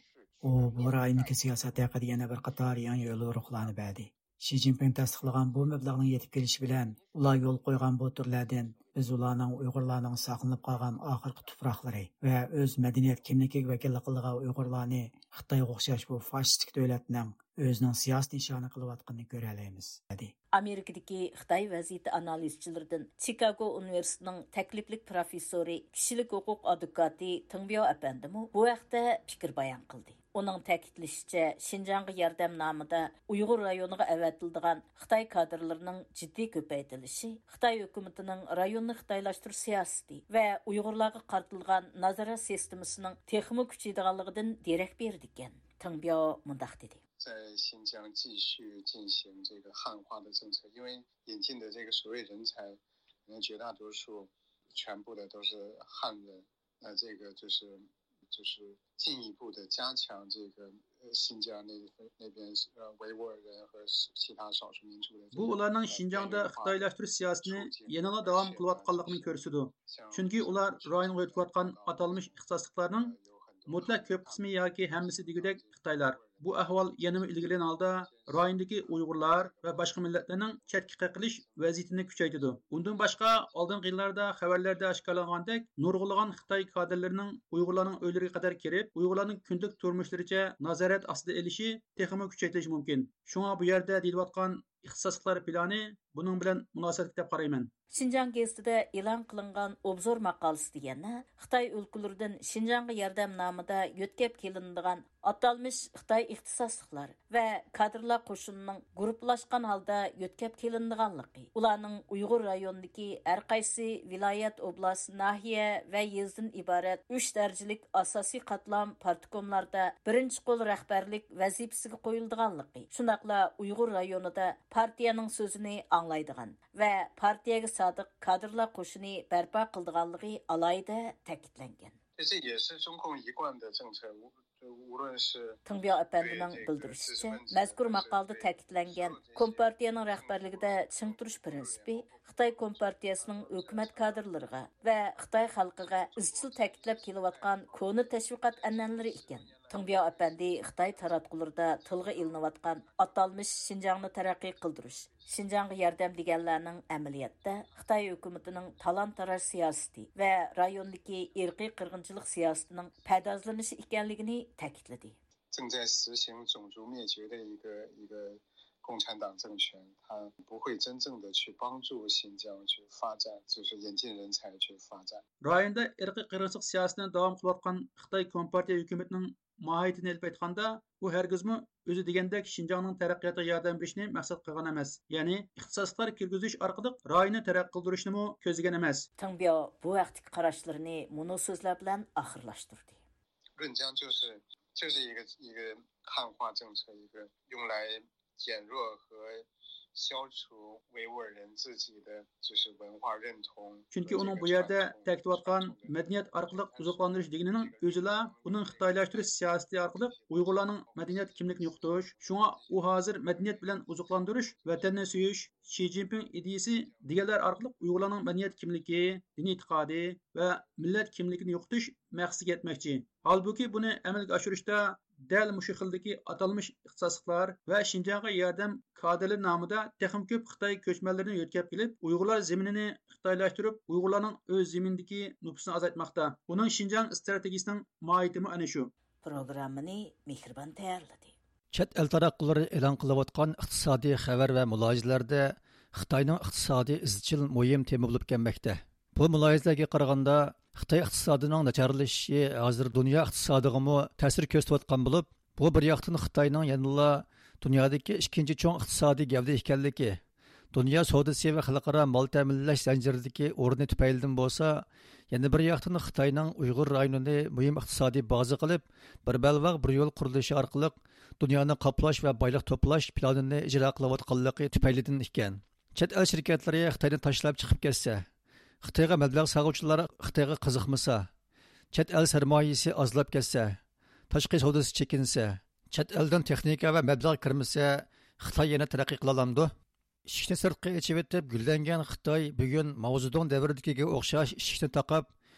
ئۇ بۇ رايوندىكى سىياسەت ھەققىدە يەنە بىر قاتار يېڭى يوليورۇقلارنى بەردى. شى جىنپىڭ تەستىقلىغان بۇ مەبلەغنىڭ يېتىپ كېلىشى بىلەن، ئۇلار يولغا قويغان بۇ تۈرلەردىن بىز ئۇلارنىڭ ئۇيغۇرلارنىڭ ساقلىنىپ قالغان ئاخىرقى تۇپراقلىرى ۋە ئۆز مەدەنىيەت كىملىكىگە ۋەكىللىك قىلىدىغان ئۇيغۇرلارنى خىتايغا ئوخشاش بۇ فاشىستىك دۆلەتنىڭ ئۆزىنىڭ سىياسىي نىشانى قىلىۋاتقىنىنى كۆرەلەيمىز، دېدى. ئامېرىكىدىكى خىتاي ۋەزىيىتى ئانالىزچىلىرىدىن چىكاگو ئۇنىۋېرسىتېتىنىڭ تەكلىپلىك پروفېسسورى، كىشىلىك ھوقۇق ئادۋوكاتى تېڭ بياۋ ئەپەندىمۇ بۇ ھەقتە پىكىر بايان قىلدى. ئۇنىڭ تەكىتلىشىچە، شىنجاڭغا ياردەم نامىدا ئۇيغۇر رايونىغا ئەۋەتىلىدىغان خىتاي كادىرلىرىنىڭ جىددىي كۆپەيتىلىشى خىتاي ھۆكۈمىتىنىڭ رايوننى خىتايلاشتۇرۇش سىياسىتى ۋە ئۇيغۇرلارغا قارىتىلغان نازارەت سىستېمىسىنىڭ تېخىمۇ كۈچىيىدىغانلىقىدىن دېرەك بېرىدىكەن. تېڭ بياۋ مۇنداق دېدى. 在新疆继续进行这个汉化的政策，因为引进的这个所谓人才，可能绝大多数全部的都是汉人，那这个就是就是进一步的加强这个呃新疆那那边呃维吾尔人和其他少数民族的这个 بۇ ئۇلارنىڭ شىنجاڭدا خىتايلاشتۇرۇش سىياسىتىنى يەنىلا داۋام قىلىۋاتقانلىقىنى كۆرسىتىدۇ. چۈنكى ئۇلار رايونغا ئۆتۈۋاتقان ئاتالمىش ئىختىساسلىقلارنىڭ مۇتلەق كۆپ قىسمى ياكى ھەممىسى دېگۈدەك خىتايلار. بۇ ئەھۋال يەنىمۇ ئىلگىرىلىگەن ھالدا رايوندىكى ئۇيغۇرلار ۋە باشقا مىللەتلەرنىڭ چەتكە قېقىلىش ۋەزىيىتىنى كۈچەيتىدۇ. ئۇندىن باشقا، ئالدىنقى يىللاردا خەۋەرلەردە ئاشكارىلانغاندەك، نۇرغۇنلىغان خىتاي كادىرلىرىنىڭ ئۇيغۇرلارنىڭ ئۆيلىرىگە قەدەر كىرىپ، ئۇيغۇرلارنىڭ كۈندىلىك تۇرمۇشلىرىچە نازارەت ئاستىدا ئېلىشى تېخىمۇ كۈچەيتىلىشى مۇمكىن. شۇڭا بۇ يەردە دېيىلىۋاتقان ئىختىساسلىقلار پىلانى بۇنىڭ بىلەن مۇناسىۋەتلىك دەپ قارايمەن. شىنجاڭ گېزىتىدە ئېلان قىلىنغان ئوبزور ماقالىسىدە يەنە خىتاي ئۆلكىلىرىدىن شىنجاڭغا ياردەم نامىدا يۆتكەپ كېلىنىدىغان ئاتالمىش خىتاي ئىختىساسلىقلار ۋە كادىرلار قوشۇنىنىڭ گۇرۇپپىلاشقان ھالدا يۆتكەپ كېلىنىدىغانلىقى، ئۇلارنىڭ ئۇيغۇر رايونىدىكى ھەر قايسى ۋىلايەت، ئوبلاست، ناھىيە ۋە يېزىدىن ئىبارەت ئۈچ دەرىجىلىك ئاساسىي قاتلام پارتكوملاردا بىرىنچى قول رەھبەرلىك ۋەزىپىسىگە قويۇلىدىغانلىقى، شۇنداقلا ئۇيغۇر رايونىدا پارتىيەنىڭ سۆزىنى ئاڭلايدىغان ۋە پارتىيەگە سادىق كادىرلار قوشۇنى بەرپا قىلىدىغانلىقى ئالاھىدە تەكىتلەنگەن. 这也是中共一贯的政策，无无论是 تېڭبياۋ ئەپەندىنىڭ بىلدۈرۈشىچە، مەزكۇر ماقالىدە تەكىتلەنگەن كومپارتىيەنىڭ رەھبەرلىكىدە چىڭ تۇرۇش پىرىنسىپى خىتاي كومپارتىيەسىنىڭ ھۆكۈمەت كادىرلىرىغا ۋە خىتاي خەلقىگە ئىزچىل تەكىتلەپ كېلىۋاتقان كونا تەشۋىقات ئەنئەنىلىرى ئىكەن. تېڭبياۋ ئەپەندى خىتاي تاراتقۇلىرىدا تىلغا ئېلىنىۋاتقان ئاتالمىش شىنجاڭنى تەرەققىي قىلدۇرۇش، شىنجاڭغا ياردەم دېگەنلەرنىڭ ئەمەلىيەتتە خىتاي ھۆكۈمىتىنىڭ تالان-تاراج سىياسىتى ۋە رايوندىكى ئىرقىي قىرغىنچىلىق سىياسىتىنىڭ پەردازلىنىشى ئىكەنلىكىنى تەكىتلىدى. 正在实行种族灭绝的一个一个共产党政权，它不会真正的去帮助新疆去发展，就是引进人才去发展。 رايوندا ئىرقىي قىرغىنچىلىق سىياسىتىنى داۋام قىلىۋاتقان خىتاي كومپارتىيە ھۆكۈمىتىنىڭ ماھىيىتىنى ئېلىپ ئېيتقاندا، ئۇ ھەرگىزمۇ ئۆزى دېگەندەك شىنجاڭنىڭ تەرەققىياتىغا ياردەم بېرىشنى مەقسەت قىلغان ئەمەس. يەنى ئىختىساسلىقلار كىرگۈزۈش ئارقىلىق رايوننى تەرەققىي قىلدۇرۇشنىمۇ كۆزلىگەن ئەمەس. تېڭبياۋ بۇ ھەقتىكى قاراشلىرىنى مۇنۇ سۆزلەر بىلەن ئاخىرلاشتۇردى. 润江就是就是一个一个汉化政策，一个用来减弱和消除维吾尔人自己的就是文化认同。 چۈنكى ئۇنىڭ بۇ يەردە تەكىتلەۋاتقان مەدەنىيەت ئارقىلىق ئوزۇقلاندۇرۇش دېگىنىنىڭ ئۆزىلا ئۇنىڭ خىتايلاشتۇرۇش سىياسىتى ئارقىلىق ئۇيغۇرلارنىڭ مەدەنىيەت كىملىكىنى يوقىتىش. شۇڭا ئۇ ھازىر مەدەنىيەت بىلەن ئوزۇقلاندۇرۇش، ۋەتەننى سۆيۈش، شى جىنپىڭ ئىدىيىسى دېگەنلەر ئارقىلىق ئۇيغۇرلارنىڭ مەدەنىيەت كىملىكى، دىنىي ئېتىقادى ۋە مىللەت كىملىكىنى يوقىتىش مەقسىتىگە يەتمەكچى. ھالبۇكى، بۇنى ئەمەلگە ئاشۇرۇشتا دەل مۇشۇ خىلدىكى ئاتالمىش ئىختىساسلىقلار ۋە شىنجاڭغا ياردەم كادىرلىرى نامىدا تېخىمۇ كۆپ خىتاي كۆچمەنلىرىنى يۆتكەپ كېلىپ، ئۇيغۇرلار زېمىنىنى خىتايلاشتۇرۇپ، ئۇيغۇرلارنىڭ ئۆز زېمىنىدىكى نوپۇسىنى ئازايتماقتا. ئۇنىڭ شىنجاڭ ئىستراتېگىيىسىنىڭ ماھىيىتىمۇ ئەنە شۇ. پروگراممىنى مېھرىبان تەييارلىدى. چەت ئەل تاراتقۇلىرى ئېلان قىلىۋاتقان ئىقتىسادىي خەۋەر ۋە مۇلاھىزىلەردە خىتاينىڭ ئىقتىسادى ئىزچىل مۇھىم تېما بولۇپ كەلمەكتە. بۇ مۇلاھىزىلەرگە قارىغاندا، خىتاي ئىقتىسادىنىڭ ناچارلىشىشى ھازىر دۇنيا ئىقتىسادىغىمۇ تەسىر كۆرسىتىۋاتقان بولۇپ، بۇ بىر ياقتىن خىتاينىڭ يەنىلا دۇنيادىكى ئىككىنچى چوڭ ئىقتىسادىي گەۋدە ئىكەنلىكى، دۇنيا سودىسى ۋە خەلقئارا مال تەمىنلەش زەنجىرىدىكى ئورنى تۈپەيلىدىن بولسا، يەنە بىر ياقتىن خىتاينىڭ ئۇيغۇر رايونىنى مۇھىم ئىقتىسادىي بازا قىلىپ، بىر بەلباغ، بىر يول قۇرۇلۇشى ئارقىلىق دۇنيانى قاپلاش ۋە بايلىق توپلاش پىلانىنى ئىجرا قىلىۋاتقانلىقى تۈپەيلىدىن ئىكەن. چەت ئەل شىركەتلىرى خىتاينى تاشلاپ چىقىپ كەتسە، خىتايغا مەبلەغ سالغۇچىلار خىتايغا قىزىقمىسا، چەت ئەل سەرمايىسى ئازلاپ كەتسە، تاشقى سودىسى چېكىنسە، چەت ئەلدىن تېخنىكا ۋە مەبلەغ كىرمىسە، خىتاي يەنە تەرەققىي قىلالامدۇ؟ ئىشىكنى سىرتقا ئېچىۋېتىپ گۈللەنگەن خىتاي بۈگۈن ماۋزېدۇڭ دەۋرىدىكىگە ئوخشاش ئىشىكنى تاقاپ،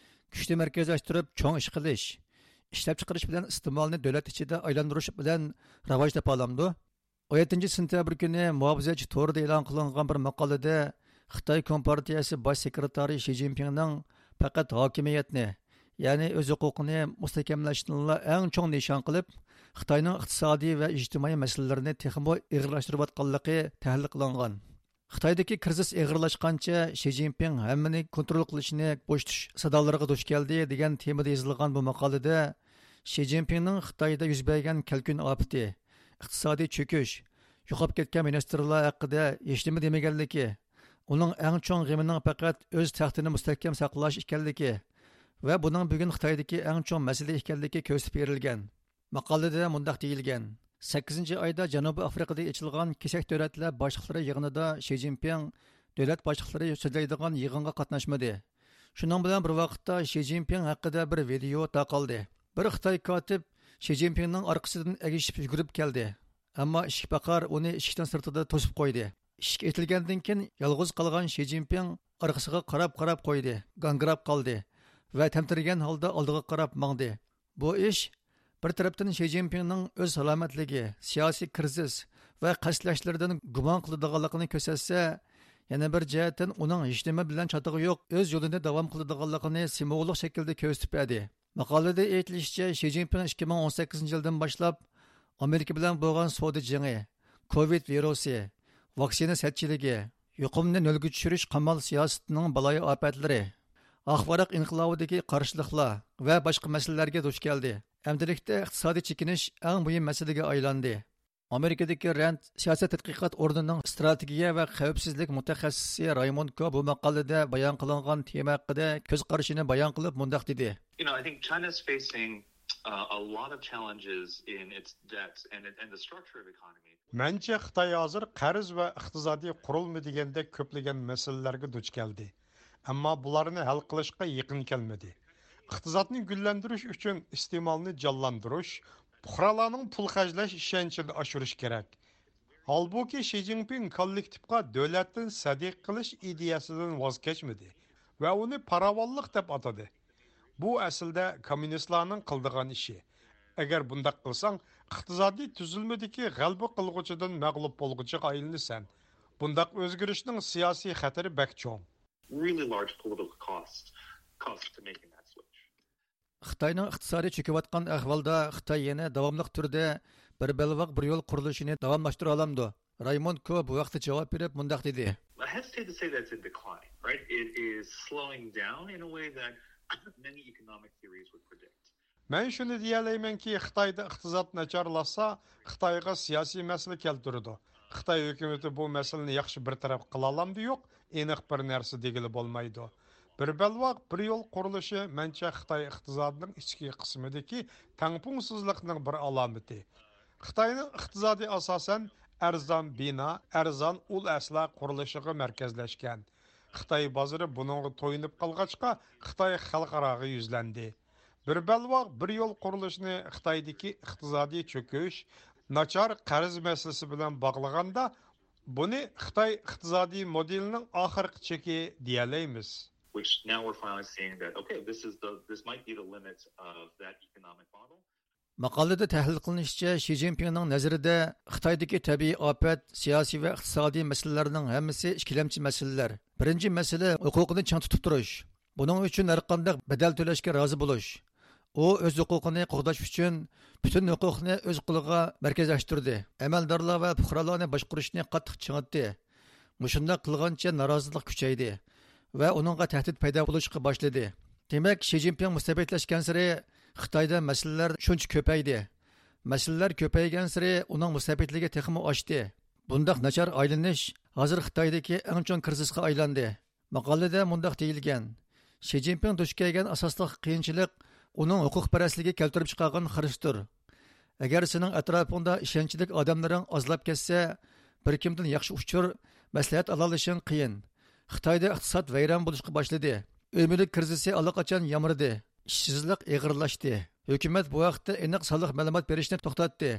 كۈچنى مەركەزلەشتۈرۈپ چوڭ ئىش قىلىش، ئىشلەپچىقىرىش بىلەن ئىستېمالنى دۆلەت ئىچىدە ئايلاندۇرۇش بىلەن راۋاج تاپالامدۇ؟ ئون يەتتىنچى سېنتەبىر كۈنى مۇھاپىزەتچى تورىدا ئېلان قىلىنغان بىر ماقالىدە خىتاي كومپارتىيەسى باش سېكرېتارى شى جىنپىڭنىڭ پەقەت ھاكىمىيەتنى، يەنى ئۆز ھوقۇقىنى مۇستەھكەملەشنىلا ئەڭ چوڭ نىشان قىلىپ، خىتاينىڭ ئىقتىسادىي ۋە ئىجتىمائىي مەسىلىلىرىنى تېخىمۇ ئېغىرلاشتۇرۇۋاتقانلىقى تەھلىل قىلىنغان. خىتايدىكى كىرىزىس ئېغىرلاشقانچە شى جىنپىڭ ھەممىنى كونترول قىلىشنى بوشىتىش سادالىرىغا دۇچ كەلدى دېگەن تېمىدا يېزىلغان بۇ ماقالىدە شى جىنپىڭنىڭ خىتايدا يۈز بەرگەن كەلكۈن ئاپىتى، ئىقتىسادىي چۆكۈش، يوقاپ كەتكەن مىنىستىرلار ھەققىدە ھېچنېمە دېمىگەنلىكى، ئۇنىڭ ئەڭ چوڭ غېمىنىڭ پەقەت ئۆز تەختىنى مۇستەھكەم ساقلاش ئىكەنلىكى ۋە بۇنىڭ بۈگۈن خىتايدىكى ئەڭ چوڭ مەسىلە ئىكەنلىكى كۆرسىتىپ بېرىلگەن. ماقالىدە مۇنداق دېيىلگەن: سەككىزىنچى ئايدا جەنۇبىي ئافرىقىدا ئېچىلغان كېسەك دۆلەتلەر باشلىقلىرى يىغىنىدا شى جىنپىڭ دۆلەت باشلىقلىرى سۆزلەيدىغان يىغىنغا قاتناشمىدى. شۇنىڭ بىلەن بىر ۋاقىتتا، شى جىنپىڭ ھەققىدە بىر ۋىدېئو تارقالدى. بىر خىتاي كاتىپ شى جىنپىڭنىڭ ئارقىسىدىن ئەگىشىپ يۈگۈرۈپ كەلدى. ئەمما ئىشىك پاقار ئۇنى ئىشىكنىڭ سىرتىدا توسۇپ قويدى. ئىشىك ئېتىلگەندىن كېيىن، يالغۇز قالغان شى جىنپىڭ ئارقىسىغا قاراپ-قاراپ قويدى، گاڭگىراپ قالدى ۋە تەمتىرىگەن ھالدا ئالدىغا قاراپ ماڭدى. بۇ ئىش بىر تەرەپتىن شى جىنپىڭنىڭ ئۆز سالامەتلىكى، سىياسىي كىرىزىس ۋە قەستلەشلىرىدىن گۇمان قىلىدىغانلىقىنى كۆرسەتسە، يەنە بىر جەھەتتىن ئۇنىڭ ھېچنېمە بىلەن چاتىقى يوق، ئۆز يولىنى داۋام قىلىدىغانلىقىنى سىمۋوللۇق شەكىلدە كۆرسىتىپ بەردى. ماقالىدە ئېيتىلىشىچە، شى جىنپىڭ ئىككى مىڭ ئون سەككىزىنچى يىلدىن باشلاپ ئامېرىكا بىلەن بولغان سودا جېڭى، كوۋىد ۋىرۇسى، ۋاكسىنا سەتچىلىكى، يۇقۇمنى نۆلگە چۈشۈرۈش قامال سىياسىتىنىڭ بالايىئاپەتلىرى، ئاق ۋاراق ئىنقىلابىدىكى قارشىلىقلار ۋە باشقا مەسىلىلەرگە دۇچ كەلدى. ئەمدىلىكتە ئىقتىسادىي چېكىنىش ئەڭ مۇھىم مەسىلىگە ئايلاندى. ئامېرىكىدىكى رەند سىياسەت تەتقىقات ئورنىنىڭ ئىستراتېگىيە ۋە خەۋپسىزلىك مۇتەخەسسىسى رايموند كو بۇ ماقالىدە بايان قىلىنغان تېما ھەققىدە كۆز قارىشىنى بايان قىلىپ مۇنداق دېدى. You know, I think China's facing uh, a lot of challenges in its debt and, it, and the structure of economy. مەنچە خىتاي ھازىر قەرز ۋە ئىقتىسادىي قۇرۇلما دېگەندەك كۆپلىگەن مەسىلىلەرگە دۇچ كەلدى. ئەمما بۇلارنى ھەل قىلىشقا يېقىن كەلمىدى. ئىقتىسادنى گۈللەندۈرۈش ئۈچۈن ئىستېمالنى جانلاندۇرۇش، پۇقرالارنىڭ پۇل خەجلەش ئىشەنچىنى ئاشۇرۇش كېرەك. ھالبۇكى، شى جىنپىڭ كوللېكتىپقا دۆلەتتىن سەدىقە قىلىش ئىدىيەسىدىن ۋاز كەچمىدى ۋە ئۇنى پاراۋانلىق دەپ ئاتىدى. بۇ ئەسلىدە كوممۇنىستلارنىڭ قىلىدىغان ئىشى. ئەگەر بۇنداق قىلساڭ، ئىقتىسادىي تۈزۈلمىدىكى غەلىبە قىلغۇچىدىن مەغلۇپ بولغۇچىغا ئايلىنىسەن. بۇنداق ئۆزگىرىشنىڭ سىياسىي خەتىرى بەك چوڭ. Really large political cost, cost to making that switch. خىتاينىڭ ئىقتىسادى چۆكۈۋاتقان ئەھۋالدا خىتاي يەنە داۋاملىق تۈردە بىر بەلباغ بىر يول قۇرۇلۇشىنى داۋاملاشتۇرالامدۇ؟ رايموند كو بۇ ھەقتە جاۋاب بېرىپ مۇنداق دېدى. I hesitate to say that's in decline, right? It is slowing down in a way that many economic theories would predict. مەن شۇنى دېيەلەيمەنكى، خىتايدا ئىقتىساد ناچارلاشسا، خىتايغا سىياسىي مەسىلە كەلتۈرىدۇ. خىتاي ھۆكۈمىتى بۇ مەسىلىنى ياخشى بىر تەرەپ قىلالامدۇ يوق، ئېنىق بىر نەرسە دېگىلى بولمايدۇ. بىر بەلباغ، بىر يول قۇرۇلۇشى، مەنچە، خىتاي ئىقتىسادىنىڭ ئىچكى قىسمىدىكى تەڭپۇڭسىزلىقنىڭ بىر ئالامىتى. خىتاينىڭ ئىقتىسادى ئاساسەن ئەرزان بىنا، ئەرزان ئۇل ئەسلىھە قۇرۇلۇشىغا مەركەزلەشكەن. خىتاي بازىرى بۇنىڭغا تويۇنۇپ قالغاچقا، خىتاي خەلقئاراغا يۈزلەندى. بىر بەلباغ، بىر يول قۇرۇلۇشىنى خىتايدىكى ئىقتىسادىي چۆكۈش، ناچار قەرز مەسىلىسى بىلەن باغلىغاندا، بۇنى خىتاي ئىقتىسادىي مودېلىنىڭ ئاخىرقى چېكى دېيەلەيمىز. Which now we're finally seeing that, okay, this is the, this might be the limit of that economic model. ماقالىدە تەھلىل قىلىنىشىچە، شى جىنپىڭنىڭ نەزىرىدە خىتايدىكى تەبىئىي ئاپەت، سىياسىي ۋە ئىقتىسادىي مەسىلىلەرنىڭ ھەممىسى ئىككىلەمچى مەسىلىلەر. بىرىنچى مەسىلە ھوقۇقنى چىڭ تۇتۇپ تۇرۇش. بۇنىڭ ئۈچۈن ھەرقانداق بەدەل تۆلەشكە رازى بولۇش. ئۇ ئۆز ھوقۇقىنى قوغداش ئۈچۈن پۈتۈن ھوقۇقنى ئۆز قولىغا مەركەزلەشتۈردى. ئەمەلدارلار ۋە پۇقرالارنى باشقۇرۇشنى قاتتىق چىڭىتتى. مۇشۇنداق قىلغانچە نارازىلىق كۈچەيدى ۋە ئۇنىڭغا تەھدىت پەيدا بولۇشقا باشلىدى. دېمەك، شى جىنپىڭ مۇستەبىتلەشكەنسېرى خىتايدا مەسىلىلەر شۇنچە كۆپەيدى. مەسىلىلەر كۆپەيگەنسېرى ئۇنىڭ مۇستەبىتلىكى تېخىمۇ ئاشتى. بۇنداق ناچار ئايلىنىش ھازىر خىتايدىكى ئەڭ چوڭ كىرىزىسقا ئايلاندى. ماقالىدە مۇنداق دېيىلگەن: شى جىنپىڭ دۇچ كەلگەن ئاساسلىق قىيىنچىلىق ئۇنىڭ ھوقۇقپەرەسلىكى كەلتۈرۈپ چىقارغان خىرىستۇر. ئەگەر سېنىڭ ئەتراپىڭدا ئىشەنچلىك ئادەملىرىڭ ئازلاپ كەتسە، بىر كىمدىن ياخشى ئۇچۇر، مەسلىھەت ئالالىشىڭ قىيىن. خىتايدا ئىقتىساد ۋەيران بولۇشقا باشلىدى. ئۆي مۈلۈك كىرىزىسى ئاللىقاچان يامرىدى. ئىشسىزلىق ئېغىرلاشتى. ھۆكۈمەت بۇ ھەقتە ئېنىق سانلىق مەلۇمات بېرىشنى توختاتتى.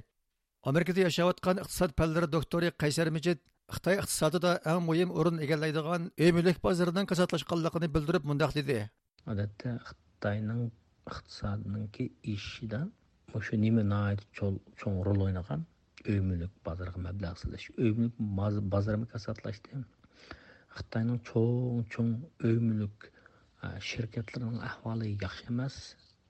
ئامېرىكىدا ياشاۋاتقان ئىقتىساد پەنلىرى دوكتورى قەيسەر مىجىت خىتاي ئىقتىسادىدا ئەڭ مۇھىم ئورۇن ئىگىلەيدىغان ئۆي مۈلۈك بازىرىنىڭ كاساتلاشقانلىقىنى بىلدۈرۈپ مۇنداق دېدى. ئادەتتە خىتاينىڭ ئىقتىسادىنىڭكى ئېشىشىدا مۇشۇ نېمە ناھايىتى چول-، چوڭ رول ئوينىغان؟ ئۆي مۈلۈك بازىرىغا مەبلەغ سېلىش. ئۆي مۈلۈك باز-، بازىرىمۇ كاساتلاشتى. خىتاينىڭ چوڭ-چوڭ ئۆي مۈلۈك، ئە، شىركەتلىرىنىڭ ئەھۋالى ياخشى ئەمەس.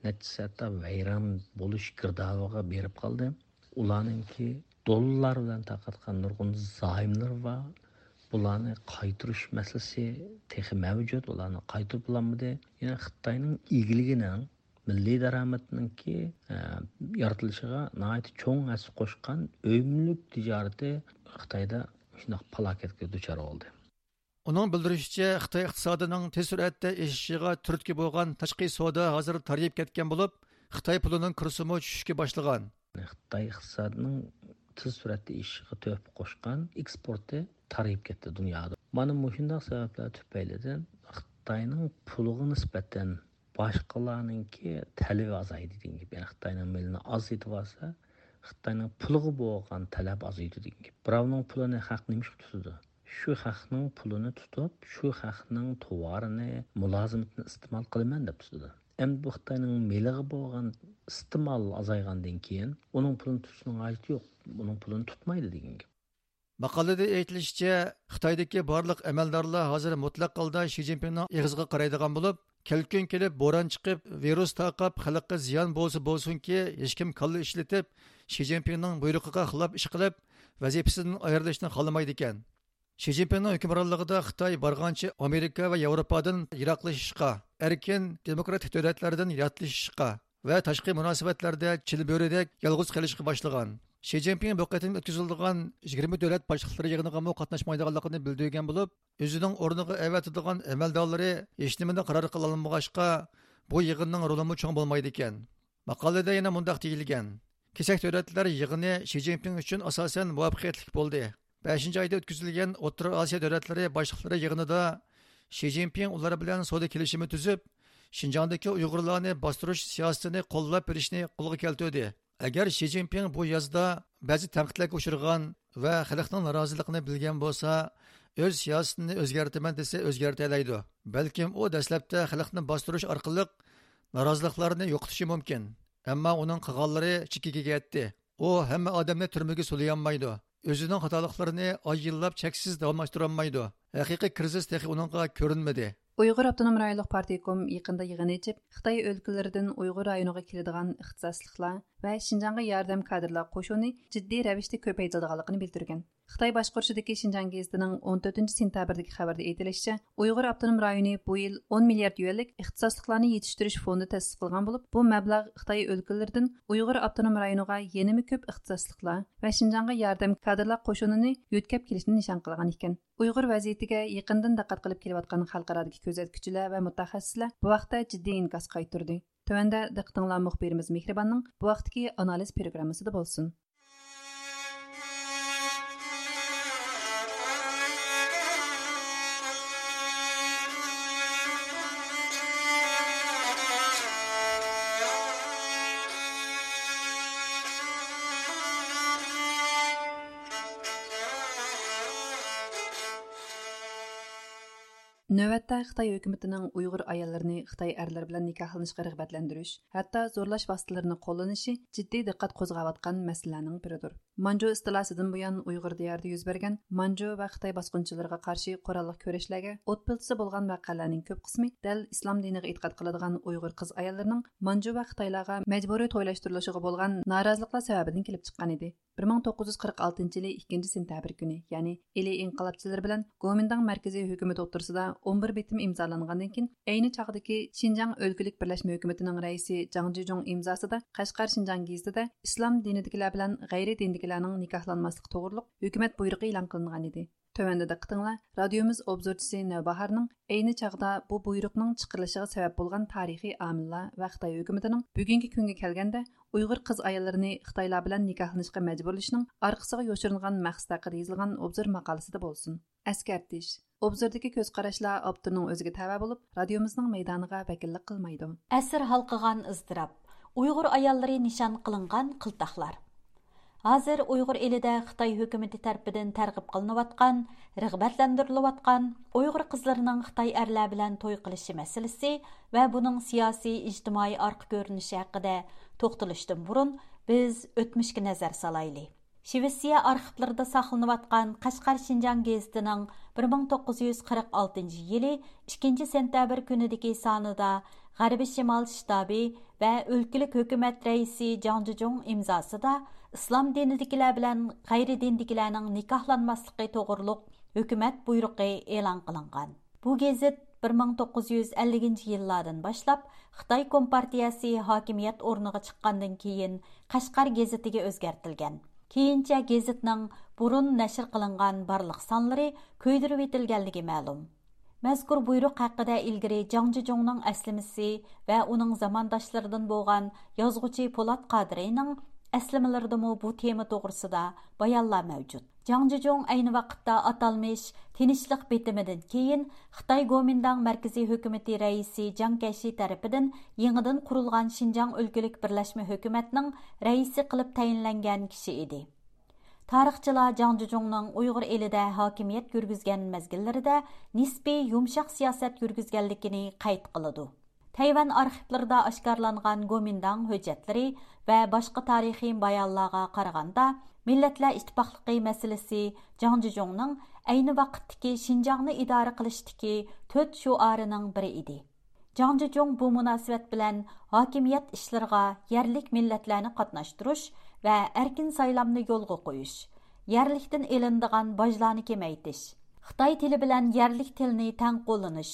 نەچچىسى ھەتتا ۋەيران بولۇش گىردابىغا بېرىپ قالدى. ئۇلارنىڭكى دوللار بىلەن تارقاتقان نۇرغۇن زايوملىرى بار. بۇلارنى قايتۇرۇش مەسىلىسى تېخى مەۋجۇت. ئۇلارنى قايتۇرۇپ بولالمىدى. يەنى خىتاينىڭ ئىگىلىكىنىڭ، مىللىي دارامىتىنىڭكى، ئە، يارىتىلىشىغا ناھايىتى چوڭ ھەسسە قوشقان ئۆي مۈلۈك تىجارىتى خىتايدا شۇنداق پالاكەتكە دۇچار بولدى. ئۇنىڭ بىلدۈرۈشىچە، خىتاي ئىقتىسادىنىڭ تېز سۈرئەتتە ئېشىشىغا تۈرتكە بولغان تاشقى سودا ھازىر تارىيىپ كەتكەن بولۇپ، خىتاي پۇلىنىڭ كۇرسىمۇ چۈشۈشكە باشلىغان. خىتاي ئىقتىسادىنىڭ تېز سۈرئەتتە ئېشىشىغا تۆھپە قوشقان ئېكسپورتى تارىيىپ كەتتى دۇنيادا. مانا مۇشۇنداق سەۋەبلەر تۈپەيلىدىن خىتاينىڭ پۇلىغا نىسبەتەن باشقىلارنىڭكى تەلىپى ئازايدى دېگەن گەپ. يەنى خىتاينىڭ مېلىنى ئازايتىۋالسا، خىتاينىڭ پۇلىغا بولغان تەلەپ ئازىيىدۇ دېگەن گەپ. بىراۋنىڭ پۇلىنى خەق نېمە ئۈچۈن تۇتىدۇ؟ شۇ خەقنىڭ پۇلىنى تۇتۇپ، شۇ خەقنىڭ تاۋارىنى، مۇلازىمىتىنى ئىستېمال قىلىمەن دەپ تۇتىدۇ. ئەمدى بۇ خىتاينىڭ مېلىغا بولغان ئىستېمال ئازايغاندىن كېيىن ئۇنىڭ پۇلىنى تۇتۇشنىڭ ھاجىتى يوق. ئۇنىڭ پۇلىنى تۇتمايدۇ دېگەن گەپ. ماقالىدە ئېيتىلىشىچە، خىتايدىكى بارلىق ئەمەلدارلار ھازىر مۇتلەق ھالدا شى جىنپىڭنىڭ ئېغىزىغا قارايدىغان بولۇپ، كەلكۈن كېلىپ، بوران چىقىپ، ۋىرۇس تارقاپ، خەلققە زىيان بولسا بولسۇنكى، ھېچكىم كاللا ئىشلىتىپ، شى جىنپىڭنىڭ بۇيرۇقىغا خىلاپ ئىش قىلىپ، ۋەزىپىسىدىن ئايرىلىشنى خالىمايدىكەن. شى جىنپىڭنىڭ ھۆكۈمرانلىقىدا خىتاي بارغانچە ئامېرىكا ۋە ياۋروپادىن يىراقلىشىشقا، ئەركىن دېموكراتىك دۆلەتلەردىن ياتلىشىشقا ۋە تاشقى مۇناسىۋەتلەردە چىلبۆرىدەك يالغۇز قېلىشقا باشلىغان. شى جىنپىڭ بۇ قېتىم ئۆتكۈزۈلىدىغان يىگىرمە دۆلەت باشلىقلىرى يىغىنىغىمۇ قاتناشمايدىغانلىقىنى بىلدۈرگەن بولۇپ، ئۆزىنىڭ ئورنىغا ئەۋەتىدىغان ئەمەلدارلىرى ھېچنېمىنى قارار قىلالمىغاچقا، بۇ يىغىننىڭ رولىمۇ چوڭ بولمايدىكەن. ماقالىدە يەنە مۇنداق دېيىلگەن: كېسەك دۆلەتلەر يىغىنى شى جىنپىڭ ئۈچۈن ئاساسەن مۇۋەپپەقىيەتلىك بولدى. بەشىنچى ئايدا ئۆتكۈزۈلگەن ئوتتۇرا ئاسىيا دۆلەتلىرى باشلىقلىرى يىغىنىدا شى جىنپىڭ ئۇلار بىلەن سودا كېلىشىمى تۈزۈپ، شىنجاڭدىكى ئۇيغۇرلارنى باستۇرۇش سىياسىتىنى قوللاپ بېرىشنى قولغا كەلتۈردى. ئەگەر شى جىنپىڭ بۇ يازدا بەزى تەنقىدلەرگە ئۇچرىغان ۋە خەلقنىڭ نارازىلىقىنى بىلگەن بولسا، ئۆز سىياسىتىنى ئۆزگەرتىمەن دېسە ئۆزگەرتەلەيدۇ. بەلكىم ئۇ دەسلەپتە خەلقنى باستۇرۇش ئارقىلىق نارازىلىقلارنى يوقىتىشى مۇمكىن. ئەمما ئۇنىڭ قىلغانلىرى چېكىگە يەتتى. ئۇ ھەممە ئادەمنى تۈرمىگە سولىيالمايدۇ. ئۆزىنىڭ خاتالىقلىرىنى ئاي يىللاپ چەكسىز داۋاملاشتۇرالمايدۇ. ھەقىقىي كىرىزىس تېخى ئۇنىڭغا كۆرۈنمىدى. ئۇيغۇر ئاپتونوم رايونلۇق پارتكوم يېقىندا يىغىن ئېچىپ، خىتاي ئۆلكىلىرىدىن ئۇيغۇر رايونىغا كېلىدىغان ئىختىساسلىقلار ۋە شىنجاڭغا ياردەم كادىرلار قوشۇنى جىددىي رەۋىشتە كۆپەيتىلىدىغانلىقىنى بىلدۈرگەن. خىتاي باشقۇرۇشىدىكى شىنجاڭ گېزىتىنىڭ ئون تۆتىنچى سېنتەبىردىكى خەۋىرىدە ئېيتىلىشىچە، ئۇيغۇر ئاپتونوم رايونى بۇ يىل ئون مىليارد يۈەنلىك ئىختىساسلىقلارنى يېتىشتۈرۈش فوندى تەسىس قىلغان بولۇپ، بۇ مەبلەغ خىتاي ئۆلكىلىرىدىن ئۇيغۇر ئاپتونوم رايونىغا يەنىمۇ كۆپ ئىختىساسلىقلار ۋە شىنجاڭغا ياردەم كادىرلار قوشۇنىنى يۆتكەپ كېلىشنى نىشان قىلغان ئىكەن. ئۇيغۇر ۋەزىيىتىگە يېقىندىن دىققەت قىلىپ كېلىۋاتقان خەلقئارادىكى كۆزەتكۈچىلەر ۋە مۇتەخەسسىسلەر بۇ ھەقتە جىددىي ئىنكاس قايتۇردى. تۆۋەندە دىققىتىڭلار مۇخبىرىمىز مېھرىباننىڭ بۇ ھەقتىكى ئانالىز پروگراممىسىدا بولسۇن. نۆۋەتتە خىتاي ھۆكۈمىتىنىڭ ئۇيغۇر ئاياللىرىنى خىتاي ئەرلىرى بىلەن نىكاھلىنىشقا رىغبەتلەندۈرۈش، ھەتتا زورلاش ۋاسىتىلىرىنى قوللىنىشى جىددىي دىققەت قوزغاۋاتقان مەسىلىلەرنىڭ بىرىدۇر. مانجۇ ئىستىلاسىدىن بۇيان، ئۇيغۇر دىيارىدا يۈز بەرگەن مانجۇ ۋە خىتاي باسقۇنچىلىرىغا قارشى قوراللىق كۈرەشلەرگە ئوت پىلتىسى بولغان ۋەقەلەرنىڭ كۆپ قىسمى دەل ئىسلام دىنىغا ئېتىقاد قىلىدىغان ئۇيغۇر قىز ئاياللىرىنىڭ مانجۇ ۋە خىتايلارغا مەجبۇرىي تويلاشتۇرۇلۇشىغا بولغان نارازىلىقلار سەۋەبىدىن كېلىپ چىققان ئىدى. بىر مىڭ توققۇز يۈز قىرىق ئالتىنچى يىلى ئىككىنچى سېنتەبىر كۈنى، يەنى ئىلى ئىنقىلابچىلىرى بىلەن گومىنداڭ مەركىزىي ھۆكۈمىتى ئوتتۇرىسىدا ئون بىر بېتىم ئىمزالانغاندىن كېيىن، ئەينى چاغدىكى شىنجاڭ ئۆلكىلىك بىرلەشمە ھۆكۈمىتىنىڭ رەئىسى جاڭ جىجۇڭ ئىمزاسىدا قەشقەر شىنجاڭ گېزىتىدە ئىسلام دىنىدىكىلەر بىلەن غەيرىي دىندىكىلەرنىڭ نىكاھلانماسلىقى توغرۇلۇق ھۆكۈمەت بۇيرۇقى ئېلان قىلىنغان ئىدى. تۆۋەندە دىققىتىڭلار رادىيومىز ئوبزورچىسى نەۋباھارنىڭ ئەينى چاغدا بۇ بۇيرۇقنىڭ چىقىرىلىشىغا سەۋەب بولغان تارىخىي ئامىللار ۋە خىتاي ھۆكۈمىتىنىڭ بۈگۈنكى كۈنگە كەلگەندە ئۇيغۇر قىز ئاياللىرىنى خىتايلار بىلەن نىكاھلىنىشقا مەجبۇرلىشىنىڭ ئارقىسىغا يوشۇرۇنغان مەقسىتى ھەققىدە يېزىلغان ئوبزور ماقالىسىدە بولسۇن. ئەسكەرتىش: ئوبزوردىكى كۆز قاراشلار ئاپتورنىڭ ئۆزىگە تەۋە بولۇپ، رادىيومىزنىڭ مەيدانىغا ۋەكىللىك قىلمايدۇ. ئەسىر ھالقىغان ئىزتىراپ. ئۇيغۇر ئاياللىرى نىشان قىلىنغان قىلتاقلار. ھازىر ئۇيغۇر ئېلىدە خىتاي ھۆكۈمىتى تەرىپىدىن تەرغىب قىلىنىۋاتقان، رىغبەتلەندۈرۈلۈۋاتقان، ئۇيغۇر قىزلىرىنىڭ خىتاي ئەرلەر بىلەن توي قىلىشى مەسىلىسى ۋە بۇنىڭ سىياسىي، ئىجتىمائىي ئارقا كۆرۈنۈشى ھەققىدە توختىلىشتىن بۇرۇن، بىز ئۆتمۈشكە نەزەر سالايلى. شىۋېتسىيە ئارخىپلىرىدا ساقلىنىۋاتقان قەشقەر شىنجاڭ گېزىتىنىڭ بىر مىڭ توققۇز يۈز قىرىق ئالتىنچى يىلى ئىككىنچى سېنتەبىر كۈنىدىكى سانىدا غەربىي شىمال شتابى ۋە ئۆلكىلىك ھۆكۈمەت رەئىسى جاڭ جىجۇڭ ئىمزاسىدا ئىسلام دىنىدىكىلەر بىلەن غەيرىي دىندىكىلەرنىڭ نىكاھلانماسلىقى توغرۇلۇق ھۆكۈمەت بۇيرۇقى ئېلان قىلىنغان. بۇ گېزىت بىر مىڭ توققۇز يۈز ئەللىكىنچى يىللاردىن باشلاپ خىتاي كومپارتىيەسى ھاكىمىيەت ئورنىغا چىققاندىن كېيىن قەشقەر گېزىتىگە ئۆزگەرتىلگەن. كېيىنچە گېزىتنىڭ بۇرۇن نەشر قىلىنغان بارلىق سانلىرى كۆيدۈرۈۋېتىلگەنلىكى مەلۇم. مەزكۇر بۇيرۇق ھەققىدە ئىلگىرى جاڭ جىجۇڭنىڭ ئەسلىمىسى ۋە ئۇنىڭ زامانداشلىرىدىن بولغان يازغۇچى پولات قادىرىنىڭ ئەسلىمىلىرىدىمۇ بۇ تېما توغرىسىدا بايانلار مەۋجۇت. جاڭ جىجۇڭ ئەينى ۋاقىتتا ئاتالمىش تىنچلىق بېتىمىدىن كېيىن خىتاي گومىنداڭ مەركىزىي ھۆكۈمىتى رەئىسى جاڭ كەشى تەرىپىدىن يېڭىدىن قۇرۇلغان شىنجاڭ ئۆلكىلىك بىرلەشمە ھۆكۈمەتنىڭ رەئىسى قىلىپ تەيىنلەنگەن كىشى ئىدى. تارىخچىلار جاڭ جىجۇڭنىڭ ئۇيغۇر ئېلىدە ھاكىمىيەت يۈرگۈزگەن مەزگىللىرىدە نىسپىي يۇمشاق سىياسەت يۈرگۈزگەنلىكىنى قەيت قىلىدۇ. تەيۋەن ئارخىپلىرىدا ئاشكارىلانغان گومىنداڭ ھۆججەتلىرى ۋە باشقا تارىخىي بايانلارغا قارىغاندا، مىللەتلەر ئىتتىپاقلىقى مەسىلىسى جاڭ جىجۇڭنىڭ ئەينى ۋاقىتتىكى شىنجاڭنى ئىدارە قىلىشتىكى تۆت شوئارىنىڭ بىرى ئىدى. جاڭ جىجۇڭ بۇ مۇناسىۋەت بىلەن ھاكىمىيەت ئىشلىرىغا يەرلىك مىللەتلەرنى قاتناشتۇرۇش ۋە ئەركىن سايلامنى يولغا قويۇش، يەرلىكتىن ئېلىنىدىغان باجلارنى كېمەيتىش، خىتاي تىلى بىلەن يەرلىك تىلنى تەڭ قوللىنىش،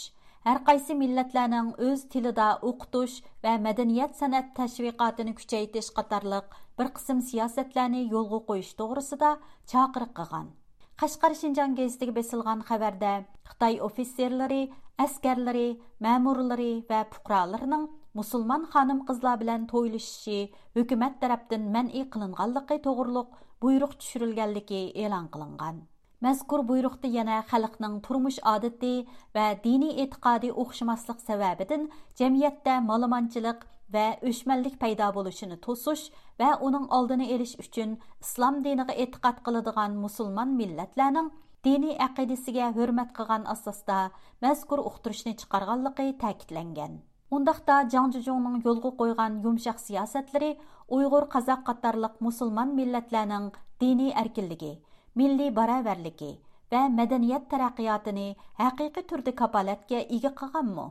ھەرقايسى مىللەتلەرنىڭ ئۆز تىلىدا ئوقۇتۇش ۋە مەدەنىيەت سەنئەت تەشۋىقاتىنى كۈچەيتىش قاتارلىق بىر قىسىم سىياسەتلەرنى يولغا قويۇش توغرىسىدا چاقىرىق قىلغان. قەشقەر شىنجاڭ گېزىتىگە بېسىلغان خەۋەردە، خىتاي ئوفىتسېرلىرى، ئەسكەرلىرى، مەمۇرلىرى ۋە پۇقرالىرىنىڭ مۇسۇلمان خانىم-قىزلار بىلەن تويلىشىشى ھۆكۈمەت تەرەپتىن مەنئى قىلىنغانلىقى توغرۇلۇق بۇيرۇق چۈشۈرۈلگەنلىكى ئېلان قىلىنغان. مەزكۇر بۇيرۇقتا يەنە خەلقنىڭ تۇرمۇش ئادىتى ۋە دىنىي ئېتىقادى ئوخشىماسلىق سەۋەبىدىن جەمئىيەتتە مالىمانچىلىق ۋە ئۆچمەنلىك پەيدا بولۇشىنى توسۇش ۋە ئۇنىڭ ئالدىنى ئېلىش ئۈچۈن ئىسلام دىنىغا ئېتىقاد قىلىدىغان مۇسۇلمان مىللەتلەرنىڭ دىنىي ئەقىدىسىگە ھۆرمەت قىلغان ئاساستا مەزكۇر ئۇقتۇرۇشنى چىقارغانلىقى تەكىتلەنگەن. ئۇنداقتا جاڭ جىجۇڭنىڭ يولغا قويغان يۇمشاق سىياسەتلىرى ئۇيغۇر، قازاق قاتارلىق مۇسۇلمان مىللەتلەرنىڭ دىنىي ئەركىنلىكى، مىللىي باراۋەرلىكى ۋە مەدەنىيەت تەرەققىياتىنى ھەقىقىي تۈردە كاپالەتكە ئىگە قىلغانمۇ؟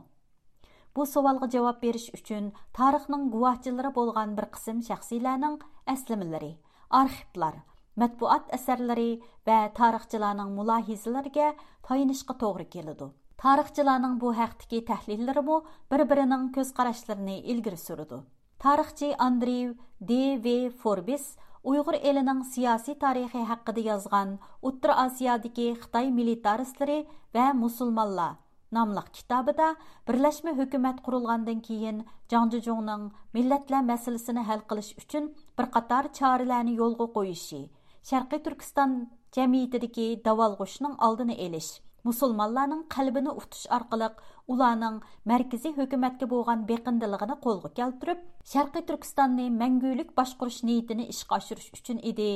بۇ سوئالغا جاۋاب بېرىش ئۈچۈن تارىخنىڭ گۇۋاھچىلىرى بولغان بىر قىسىم شەخسلەرنىڭ ئەسلىمىلىرى، ئارخىپلار، مەتبۇئات ئەسەرلىرى ۋە تارىخچىلارنىڭ مۇلاھىزىلىرىگە تايىنىشقا توغرا كېلىدۇ. تارىخچىلارنىڭ بۇ ھەقتىكى تەھلىللىرىمۇ بىر-بىرىنىڭ كۆز قاراشلىرىنى ئىلگىرى سۈرىدۇ. تارىخچى ئاندرېيۋ دې ۋې فوربىس ئۇيغۇر ئېلىنىڭ سىياسىي تارىخى ھەققىدە يازغان ئوتتۇرا ئاسىيادىكى خىتاي مىلىتارىستلىرى ۋە مۇسۇلمانلار ناملىق كىتابىدا، بىرلەشمە ھۆكۈمەت قۇرۇلغاندىن كېيىن، جاڭ جىجۇڭنىڭ مىللەتلەر مەسىلىسىنى ھەل قىلىش ئۈچۈن بىر قاتار چارىلەرنى يولغا قويۇشى، شەرقىي تۈركىستان جەمئىيىتىدىكى داۋالغۇشنىڭ ئالدىنى ئېلىش، مۇسۇلمانلارنىڭ قەلبىنى ئۇتۇش ئارقىلىق ئۇلارنىڭ مەركىزىي ھۆكۈمەتكە بولغان بېقىندىلىقىنى قولغا كەلتۈرۈپ، شەرقىي تۈركىستاننى مەڭگۈلۈك باشقۇرۇش نىيىتىنى ئىشقا ئاشۇرۇش ئۈچۈن ئىدى،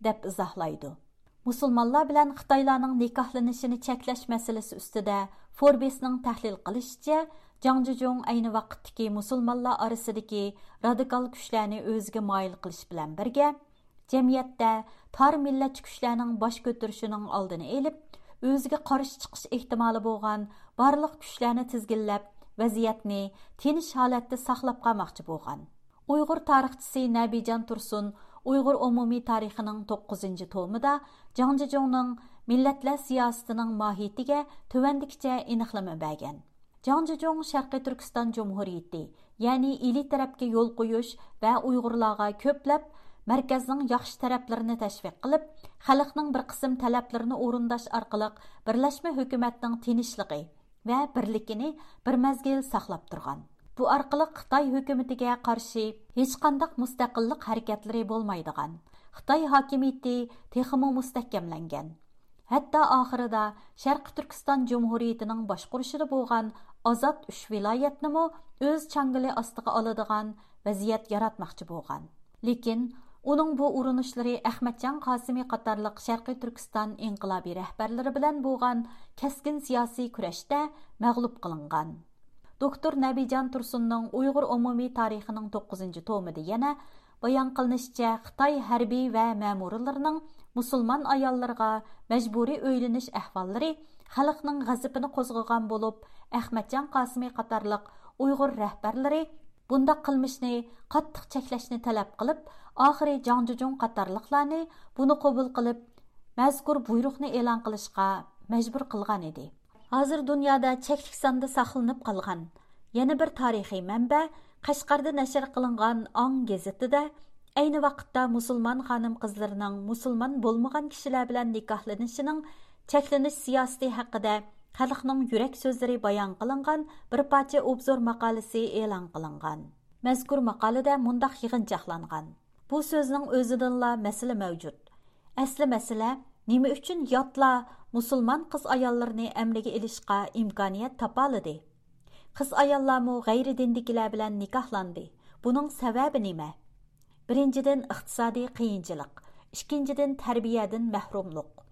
دەپ ئىزاھلايدۇ. مۇسۇلمانلار بىلەن خىتايلارنىڭ نىكاھلىنىشىنى چەكلەش مەسىلىسى ئۈستىدە فوربسنىڭ تەھلىل قىلىشىچە، جاڭ جىجۇڭ ئەينى ۋاقىتتىكى مۇسۇلمانلار ئارىسىدىكى رادىكال كۈچلەرنى ئۆزىگە مايىل قىلىش بىلەن بىرگە، جەمئىيەتتە تار مىللەتچى كۈچلەرنىڭ باش كۆتۈرۈشىنىڭ ئالدىنى ئېلىپ، ئۆزىگە قارشى چىقىش ئېھتىمالى بولغان بارلىق كۈچلەرنى تىزگىنلەپ، ۋەزىيەتنى تىنچ ھالەتتە ساقلاپ قالماقچى بولغان. ئۇيغۇر تارىخچىسى نەبىجان تۇرسۇن ئۇيغۇر ئومۇمىي تارىخىنىڭ توققۇزىنچى تومىدا جاڭ جىجۇڭنىڭ مىللەتلەر سىياسىتىنىڭ ماھىيىتىگە تۆۋەندىكىچە ئېنىقلىما بەرگەن. جاڭ جىجۇڭ شەرقىي تۈركىستان جۇمھۇرىيىتى، يەنى ئىلى تەرەپكە يول قويۇش ۋە ئۇيغۇرلارغا كۆپلەپ مەركەزنىڭ ياخشى تەرەپلىرىنى تەشۋىق قىلىپ، خەلقنىڭ بىر قىسىم تەلەپلىرىنى ئورۇنداش ئارقىلىق بىرلەشمە ھۆكۈمەتنىڭ تىنچلىقى، ۋە بىرلىكىنى بىر مەزگىل ساقلاپ تۇرغان. بۇ ئارقىلىق خىتاي ھۆكۈمىتىگە قارشى ھېچقانداق مۇستەقىللىق ھەرىكەتلىرى بولمايدىغان، خىتاي ھاكىمىيىتى تېخىمۇ مۇستەھكەملەنگەن. ھەتتا ئاخىرىدا شەرقىي تۈركىستان جۇمھۇرىيىتىنىڭ باشقۇرۇشىدا بولغان ئازاد ئۈچ ۋىلايەتنىمۇ ئۆز چاڭگىلى ئاستىغا ئالىدىغان ۋەزىيەت ياراتماقچى بولغان. لېكىن ئۇنىڭ بۇ ئۇرۇنۇشلىرى ئەخمەتجان قاسىمى قاتارلىق شەرقىي تۈركىستان ئىنقىلابىي رەھبەرلىرى بىلەن بولغان كەسكىن سىياسىي كۈرەشتە مەغلۇپ قىلىنغان. دوكتور نەبىجان تۇرسۇننىڭ ئۇيغۇر ئومۇمىي تارىخىنىڭ توققۇزىنچى تومىدا يەنە بايان قىلىنىشىچە، خىتاي ھەربىي ۋە مەمۇرلىرىنىڭ مۇسۇلمان ئاياللىرىغا مەجبۇرىي ئۆيلىنىش ئەھۋاللىرى خەلقنىڭ غەزىپىنى قوزغىغان بولۇپ، ئەخمەتجان قاسىمى قاتارلىق ئۇيغۇر رەھبەرلىرى بۇنداق قىلمىشنى قاتتىق چەكلەشنى تەلەپ قىلىپ، ئاخىرى جاڭ جىجۇڭ قاتارلىقلارنى بۇنى قوبۇل قىلىپ، مەزكۇر بۇيرۇقنى ئېلان قىلىشقا مەجبۇر قىلغان ئىدى. ھازىر دۇنيادا چەكلىك ساندا ساقلىنىپ قالغان يەنە بىر تارىخىي مەنبە، قەشقەردە نەشر قىلىنغان ئاڭ گېزىتىدە ئەينى ۋاقىتتا مۇسۇلمان خانىم-قىزلىرىنىڭ مۇسۇلمان بولمىغان كىشىلەر بىلەن نىكاھلىنىشىنىڭ چەكلىنىش سىياسىتى ھەققىدە خەلقنىڭ يۈرەك سۆزلىرى بايان قىلىنغان بىر پارچە ئوبزور ماقالىسى ئېلان قىلىنغان. مەزكۇر ماقالىدە مۇنداق يىغىنچاقلانغان: بۇ سۆزنىڭ ئۆزىدىنلا مەسىلە مەۋجۇت. ئەسلى مەسىلە، نېمە ئۈچۈن ياتلار مۇسۇلمان قىز-ئاياللىرىنى ئەمرىگە ئېلىشقا ئىمكانىيەت تاپالىدى؟ قىز-ئاياللارمۇ غەيرىي دىندىكىلەر بىلەن نىكاھلاندى. بۇنىڭ سەۋەبى نېمە؟ بىرىنچىدىن، ئىقتىسادىي قىيىنچىلىق، ئىككىنچىدىن، تەربىيەدىن مەھرۇملۇق.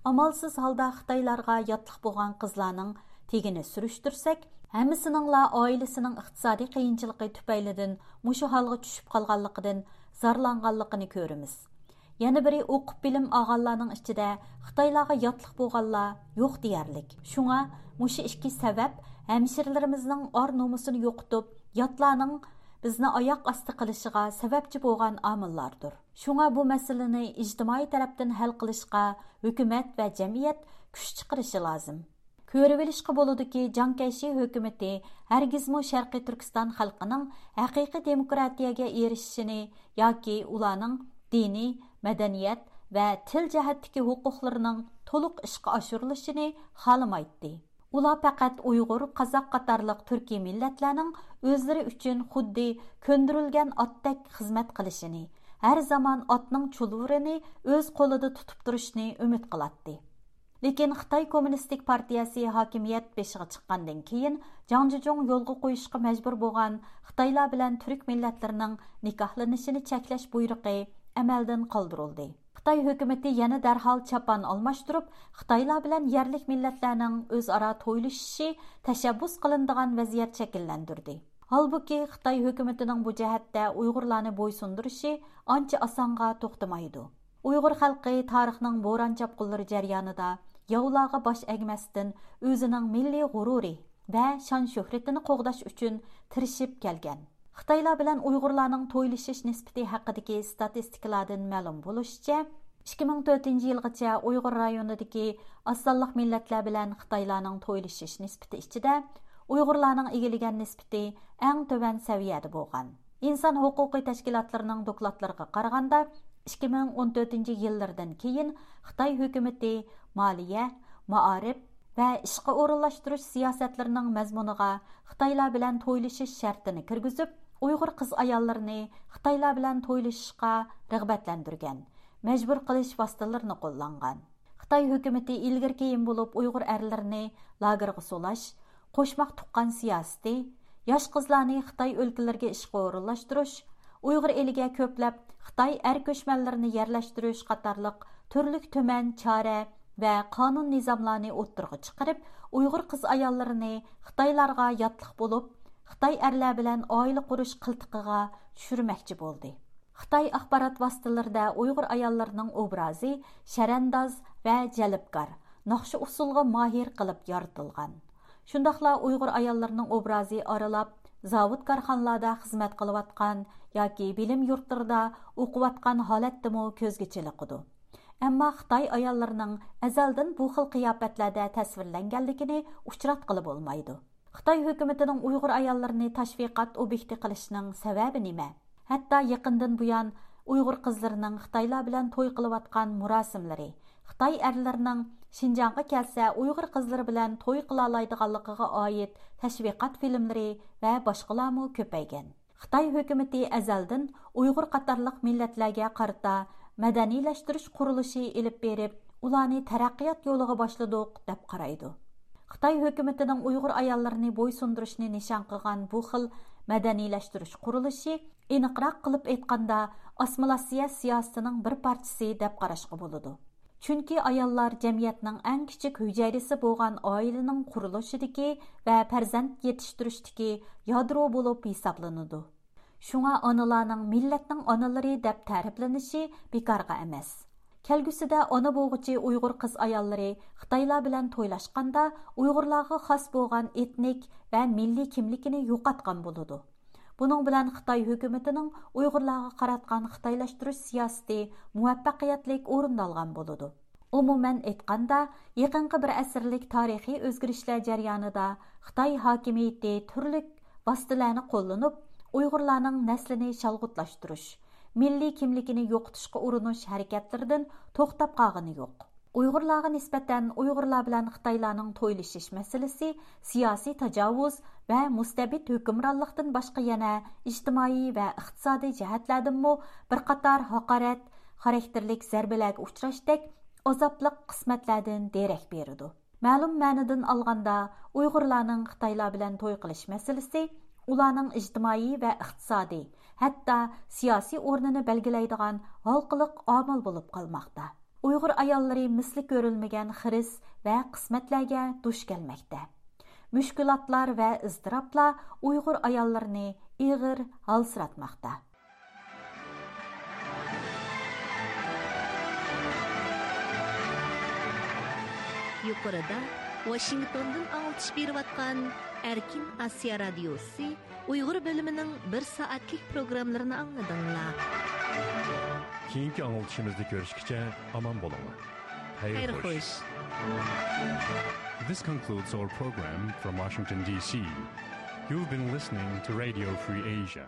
ئامالسىز ھالدا خىتايلارغا ياتلىق بولغان قىزلارنىڭ تېگىنى سۈرۈشتۈرسەك، ھەممىسىنىڭلا ئائىلىسىنىڭ ئىقتىسادىي قىيىنچىلىقى تۈپەيلىدىن مۇشۇ ھالغا چۈشۈپ قالغانلىقىدىن زارلانغانلىقىنى كۆرىمىز. يەنە بىرى، ئوقۇپ بىلىم ئالغانلارنىڭ ئىچىدە خىتايلارغا ياتلىق بولغانلار يوق دېيەرلىك. شۇڭا مۇشۇ ئىككى سەۋەب ھەمشىرىلىرىمىزنىڭ ئار نومۇسىنى يوقىتىپ، ياتلارنىڭ بىزنى ئاياق ئاستى قىلىشىغا سەۋەبچى بولغان ئامىللاردۇر. شۇڭا بۇ مەسىلىنى ئىجتىمائىي تەرەپتىن ھەل قىلىشقا ھۆكۈمەت ۋە جەمئىيەت كۈچ چىقىرىشى لازىم. كۆرۈۋېلىشقا بولىدۇكى، جاڭ كەيشى ھۆكۈمىتى ھەرگىزمۇ شەرقىي تۈركىستان خەلقىنىڭ ھەقىقىي دېموكراتىيەگە ئېرىشىشىنى ياكى ئۇلارنىڭ دىنىي، مەدەنىيەت ۋە تىل جەھەتتىكى ھوقۇقلىرىنىڭ تولۇق ئىشقا ئاشۇرۇلۇشىنى خالىمايتتى. ئۇلار پەقەت ئۇيغۇر، قازاق قاتارلىق تۈركىي مىللەتلەرنىڭ ئۆزلىرى ئۈچۈن خۇددى كۆندۈرۈلگەن ئاتتەك خىزمەت قىلىشىنى، ھەر زامان ئاتنىڭ چۇلۋۇرىنى ئۆز قولىدا تۇتۇپ تۇرۇشىنى ئۈمىد قىلاتتى. لېكىن خىتاي كوممۇنىستىك پارتىيەسى ھاكىمىيەت بېشىغا چىققاندىن كېيىن، جاڭ جىجۇڭ يولغا قويۇشقا مەجبۇر بولغان خىتايلار بىلەن تۈرك مىللەتلىرىنىڭ نىكاھلىنىشىنى چەكلەش بۇيرۇقى ئەمەلدىن قالدۇرۇلدى. خىتاي ھۆكۈمىتى يەنە دەرھال چاپان ئالماشتۇرۇپ، خىتايلار بىلەن يەرلىك مىللەتلەرنىڭ ئۆزئارا تويلىشىشى تەشەببۇس قىلىنىدىغان ۋەزىيەت شەكىللەندۈردى. ھالبۇكى، خىتاي ھۆكۈمىتىنىڭ بۇ جەھەتتە ئۇيغۇرلارنى بويسۇندۇرۇشى ئانچە ئاسانغا توختىمايدۇ. ئۇيغۇر خەلقى تارىخنىڭ بوران-چاپقۇنلىرى جەريانىدا ياۋلارغا باش ئەگمەستىن، ئۆزىنىڭ مىللىي غۇرۇرى ۋە شان-شۆھرىتىنى قوغداش ئۈچۈن تىرىشىپ كەلگەن. خىتايلار بىلەن ئۇيغۇرلارنىڭ تويلىشىش نىسبىتى ھەققىدىكى ستاتىستىكىلاردىن مەلۇم بولۇشىچە، ئىككى مىڭ تۆتىنچى يىلغىچە ئۇيغۇر رايونىدىكى ئاز سانلىق مىللەتلەر بىلەن خىتايلارنىڭ تويلىشىش نىسبىتى ئىچىدە ئۇيغۇرلارنىڭ ئىگىلىگەن نىسبىتى ئەڭ تۆۋەن سەۋىيەدە بولغان. ئىنسان ھوقۇقى تەشكىلاتلىرىنىڭ دوكلاتلىرىغا قارىغاندا، ئىككى مىڭ ئون تۆتىنچى يىللىرىدىن كېيىن خىتاي ھۆكۈمىتى مالىيە، مائارىپ ۋە ئىشقا ئورۇنلاشتۇرۇش سىياسەتلىرىنىڭ مەزمۇنىغا خىتايلار بىلەن تويلىشىش شەرتىنى كىرگۈزۈپ، ئۇيغۇر قىز-ئاياللىرىنى خىتايلار بىلەن تويلىشىشقا رىغبەتلەندۈرگەن، مەجبۇر قىلىش ۋاسىتىلىرىنى قوللانغان. خىتاي ھۆكۈمىتى ئىلگىرى-كېيىن بولۇپ ئۇيغۇر ئەرلىرىنى لاگېرغا سولاش، قوشماق تۇغقان سىياسىتى، ياش قىزلارنى خىتاي ئۆلكىلىرىگە ئىشقا ئورۇنلاشتۇرۇش، ئۇيغۇر ئېلىگە كۆپلەپ خىتاي ئەر كۆچمەنلىرىنى يەرلەشتۈرۈش قاتارلىق تۈرلۈك تۈمەن چارە ۋە قانۇن نىزاملارنى ئوتتۇرىغا چىقىرىپ، ئۇيغۇر قىز-ئاياللىرىنى خىتايلارغا ياتلىق بولۇپ، خىتاي ئەرلەر بىلەن ئائىلە قۇرۇش قىلتىقىغا چۈشۈرمەكچى بولدى. خىتاي ئاخبارات ۋاسىتىلىرىدە ئۇيغۇر ئاياللىرىنىڭ ئوبرازى شەرەنداز ۋە جەلپكار، ناخشا-ئۇسسۇلغا ماھىر قىلىپ يارىتىلغان. شۇنداقلا ئۇيغۇر ئاياللىرىنىڭ ئوبرازى ئارىلاپ، زاۋۇت-كارخانىلاردا خىزمەت قىلىۋاتقان ياكى بىلىم يۇرتلىرىدا ئوقۇۋاتقان ھالەتتىمۇ كۆزگە چېلىقىدۇ. ئەمما خىتاي ئاياللىرىنىڭ ئەزەلدىن بۇ خىل قىياپەتلەردە تەسۋىرلەنگەنلىكىنى ئۇچراتقىلى بولمايدۇ. خىتاي ھۆكۈمىتىنىڭ ئۇيغۇر ئاياللىرىنى تاشۋىقات ئوبيېكتى قىلىشىنىڭ سەۋەبى نېمە؟ ھەتتا يېقىندىن بۇيان ئۇيغۇر قىزلىرىنىڭ خىتايلار بىلەن توي قىلىۋاتقان مۇراسىملىرى، خىتاي ئەرلىرىنىڭ شىنجاڭغا كەلسە ئۇيغۇر قىزلىرى بىلەن توي قىلالايدىغانلىقىغا ئائىت تەشۋىقات فىلىملىرى ۋە باشقىلارمۇ كۆپەيگەن. خىتاي ھۆكۈمىتى ئەزەلدىن ئۇيغۇر قاتارلىق مىللەتلەرگە قارىتا مەدەنىيلەشتۈرۈش قۇرۇلۇشى ئېلىپ بېرىپ، ئۇلارنى تەرەققىيات يولىغا باشلىدۇق، دەپ قارايدۇ. خىتاي ھۆكۈمىتىنىڭ ئۇيغۇر ئاياللىرىنى بويسۇندۇرۇشنى نىشان قىلغان بۇ خىل مەدەنىيلەشتۈرۈش قۇرۇلۇشى، ئېنىقراق قىلىپ ئېيتقاندا، ئاسسىمىلياتسىيە سىياسىتىنىڭ بىر پارچىسى دەپ قاراشقا بولىدۇ. چۈنكى ئاياللار جەمئىيەتنىڭ ئەڭ كىچىك ھۈجەيرىسى بولغان ئائىلىنىڭ قۇرۇلۇشىدىكى ۋە پەرزەنت يېتىشتۈرۈشتىكى يادرو بولۇپ ھېسابلىنىدۇ. شۇڭا ئانىلارنىڭ مىللەتنىڭ ئانىلىرى دەپ تەرىپلىنىشى بىكارغا ئەمەس. كەلگۈسىدە ئانا بولغۇچى ئۇيغۇر قىز-ئاياللىرى خىتايلار بىلەن تويلاشقاندا، ئۇيغۇرلارغا خاس بولغان ئېتنىك ۋە مىللىي كىملىكىنى يوقاتقان بولىدۇ. بۇنىڭ بىلەن خىتاي ھۆكۈمىتىنىڭ ئۇيغۇرلارغا قاراتقان خىتايلاشتۇرۇش سىياسىتى مۇۋەپپەقىيەتلىك ئورۇندالغان بولىدۇ. ئومۇمەن ئېيتقاندا، يېقىنقى بىر ئەسىرلىك تارىخىي ئۆزگىرىشلەر جەريانىدا خىتاي ھاكىمىيىتى تۈرلۈك ۋاسىتىلەرنى قوللىنىپ، ئۇيغۇرلارنىڭ نەسلىنى شالغۇتلاشتۇرۇش، مىللىي كىملىكىنى يوقىتىشقا ئۇرۇنۇش ھەرىكەتلىرىدىن توختاپ قالغىنى يوق. ئۇيغۇرلارغا نىسبەتەن ئۇيغۇرلار بىلەن خىتايلارنىڭ تويلىشىش مەسىلىسى سىياسىي تاجاۋۇز ۋە مۇستەبىت ھۆكۈمرانلىقتىن باشقا يەنە ئىجتىمائىي ۋە ئىقتىسادىي جەھەتلەردىنمۇ بىر قاتار ھاقارەت خاراكتېرلىك زەربىلەرگە ئۇچراشتەك ئازابلىق قىسمەتلەردىن دېرەك بېرىدۇ. مەلۇم مەنىدىن ئالغاندا، ئۇيغۇرلارنىڭ خىتايلار بىلەن توي قىلىش مەسىلىسى ئۇلارنىڭ ئىجتىمائىي ۋە ئىقتىسادىي، ھەتتا سىياسىي ئورنىنى بەلگىلەيدىغان ھالقىلىق ئامىل بولۇپ قالماقتا. ئۇيغۇر ئاياللىرى مىسلى كۆرۈلمىگەن خىرىس ۋە قىسمەتلەرگە دۇچ كەلمەكتە. مۈشكۈلاتلار ۋە ئىزتىراپلار ئۇيغۇر ئاياللىرىنى ئېغىر ھالسىراتماقتا. يۇقىرىدا ۋاشىنگتوندىن ئاڭلىتىش بېرىۋاتقان ئەركىن ئاسىيا رادىيوسى ئۇيغۇر بۆلۈمىنىڭ بىر سائەتلىك پروگراممىلىرىنى ئاڭلىدىڭلار. كېيىنكى ئاڭلىتىشىمىزدا كۆرۈشكىچە ئامان بولۇڭلار. خەير خوش. This concludes our program from Washington, D C. You've been listening to Radio Free Asia.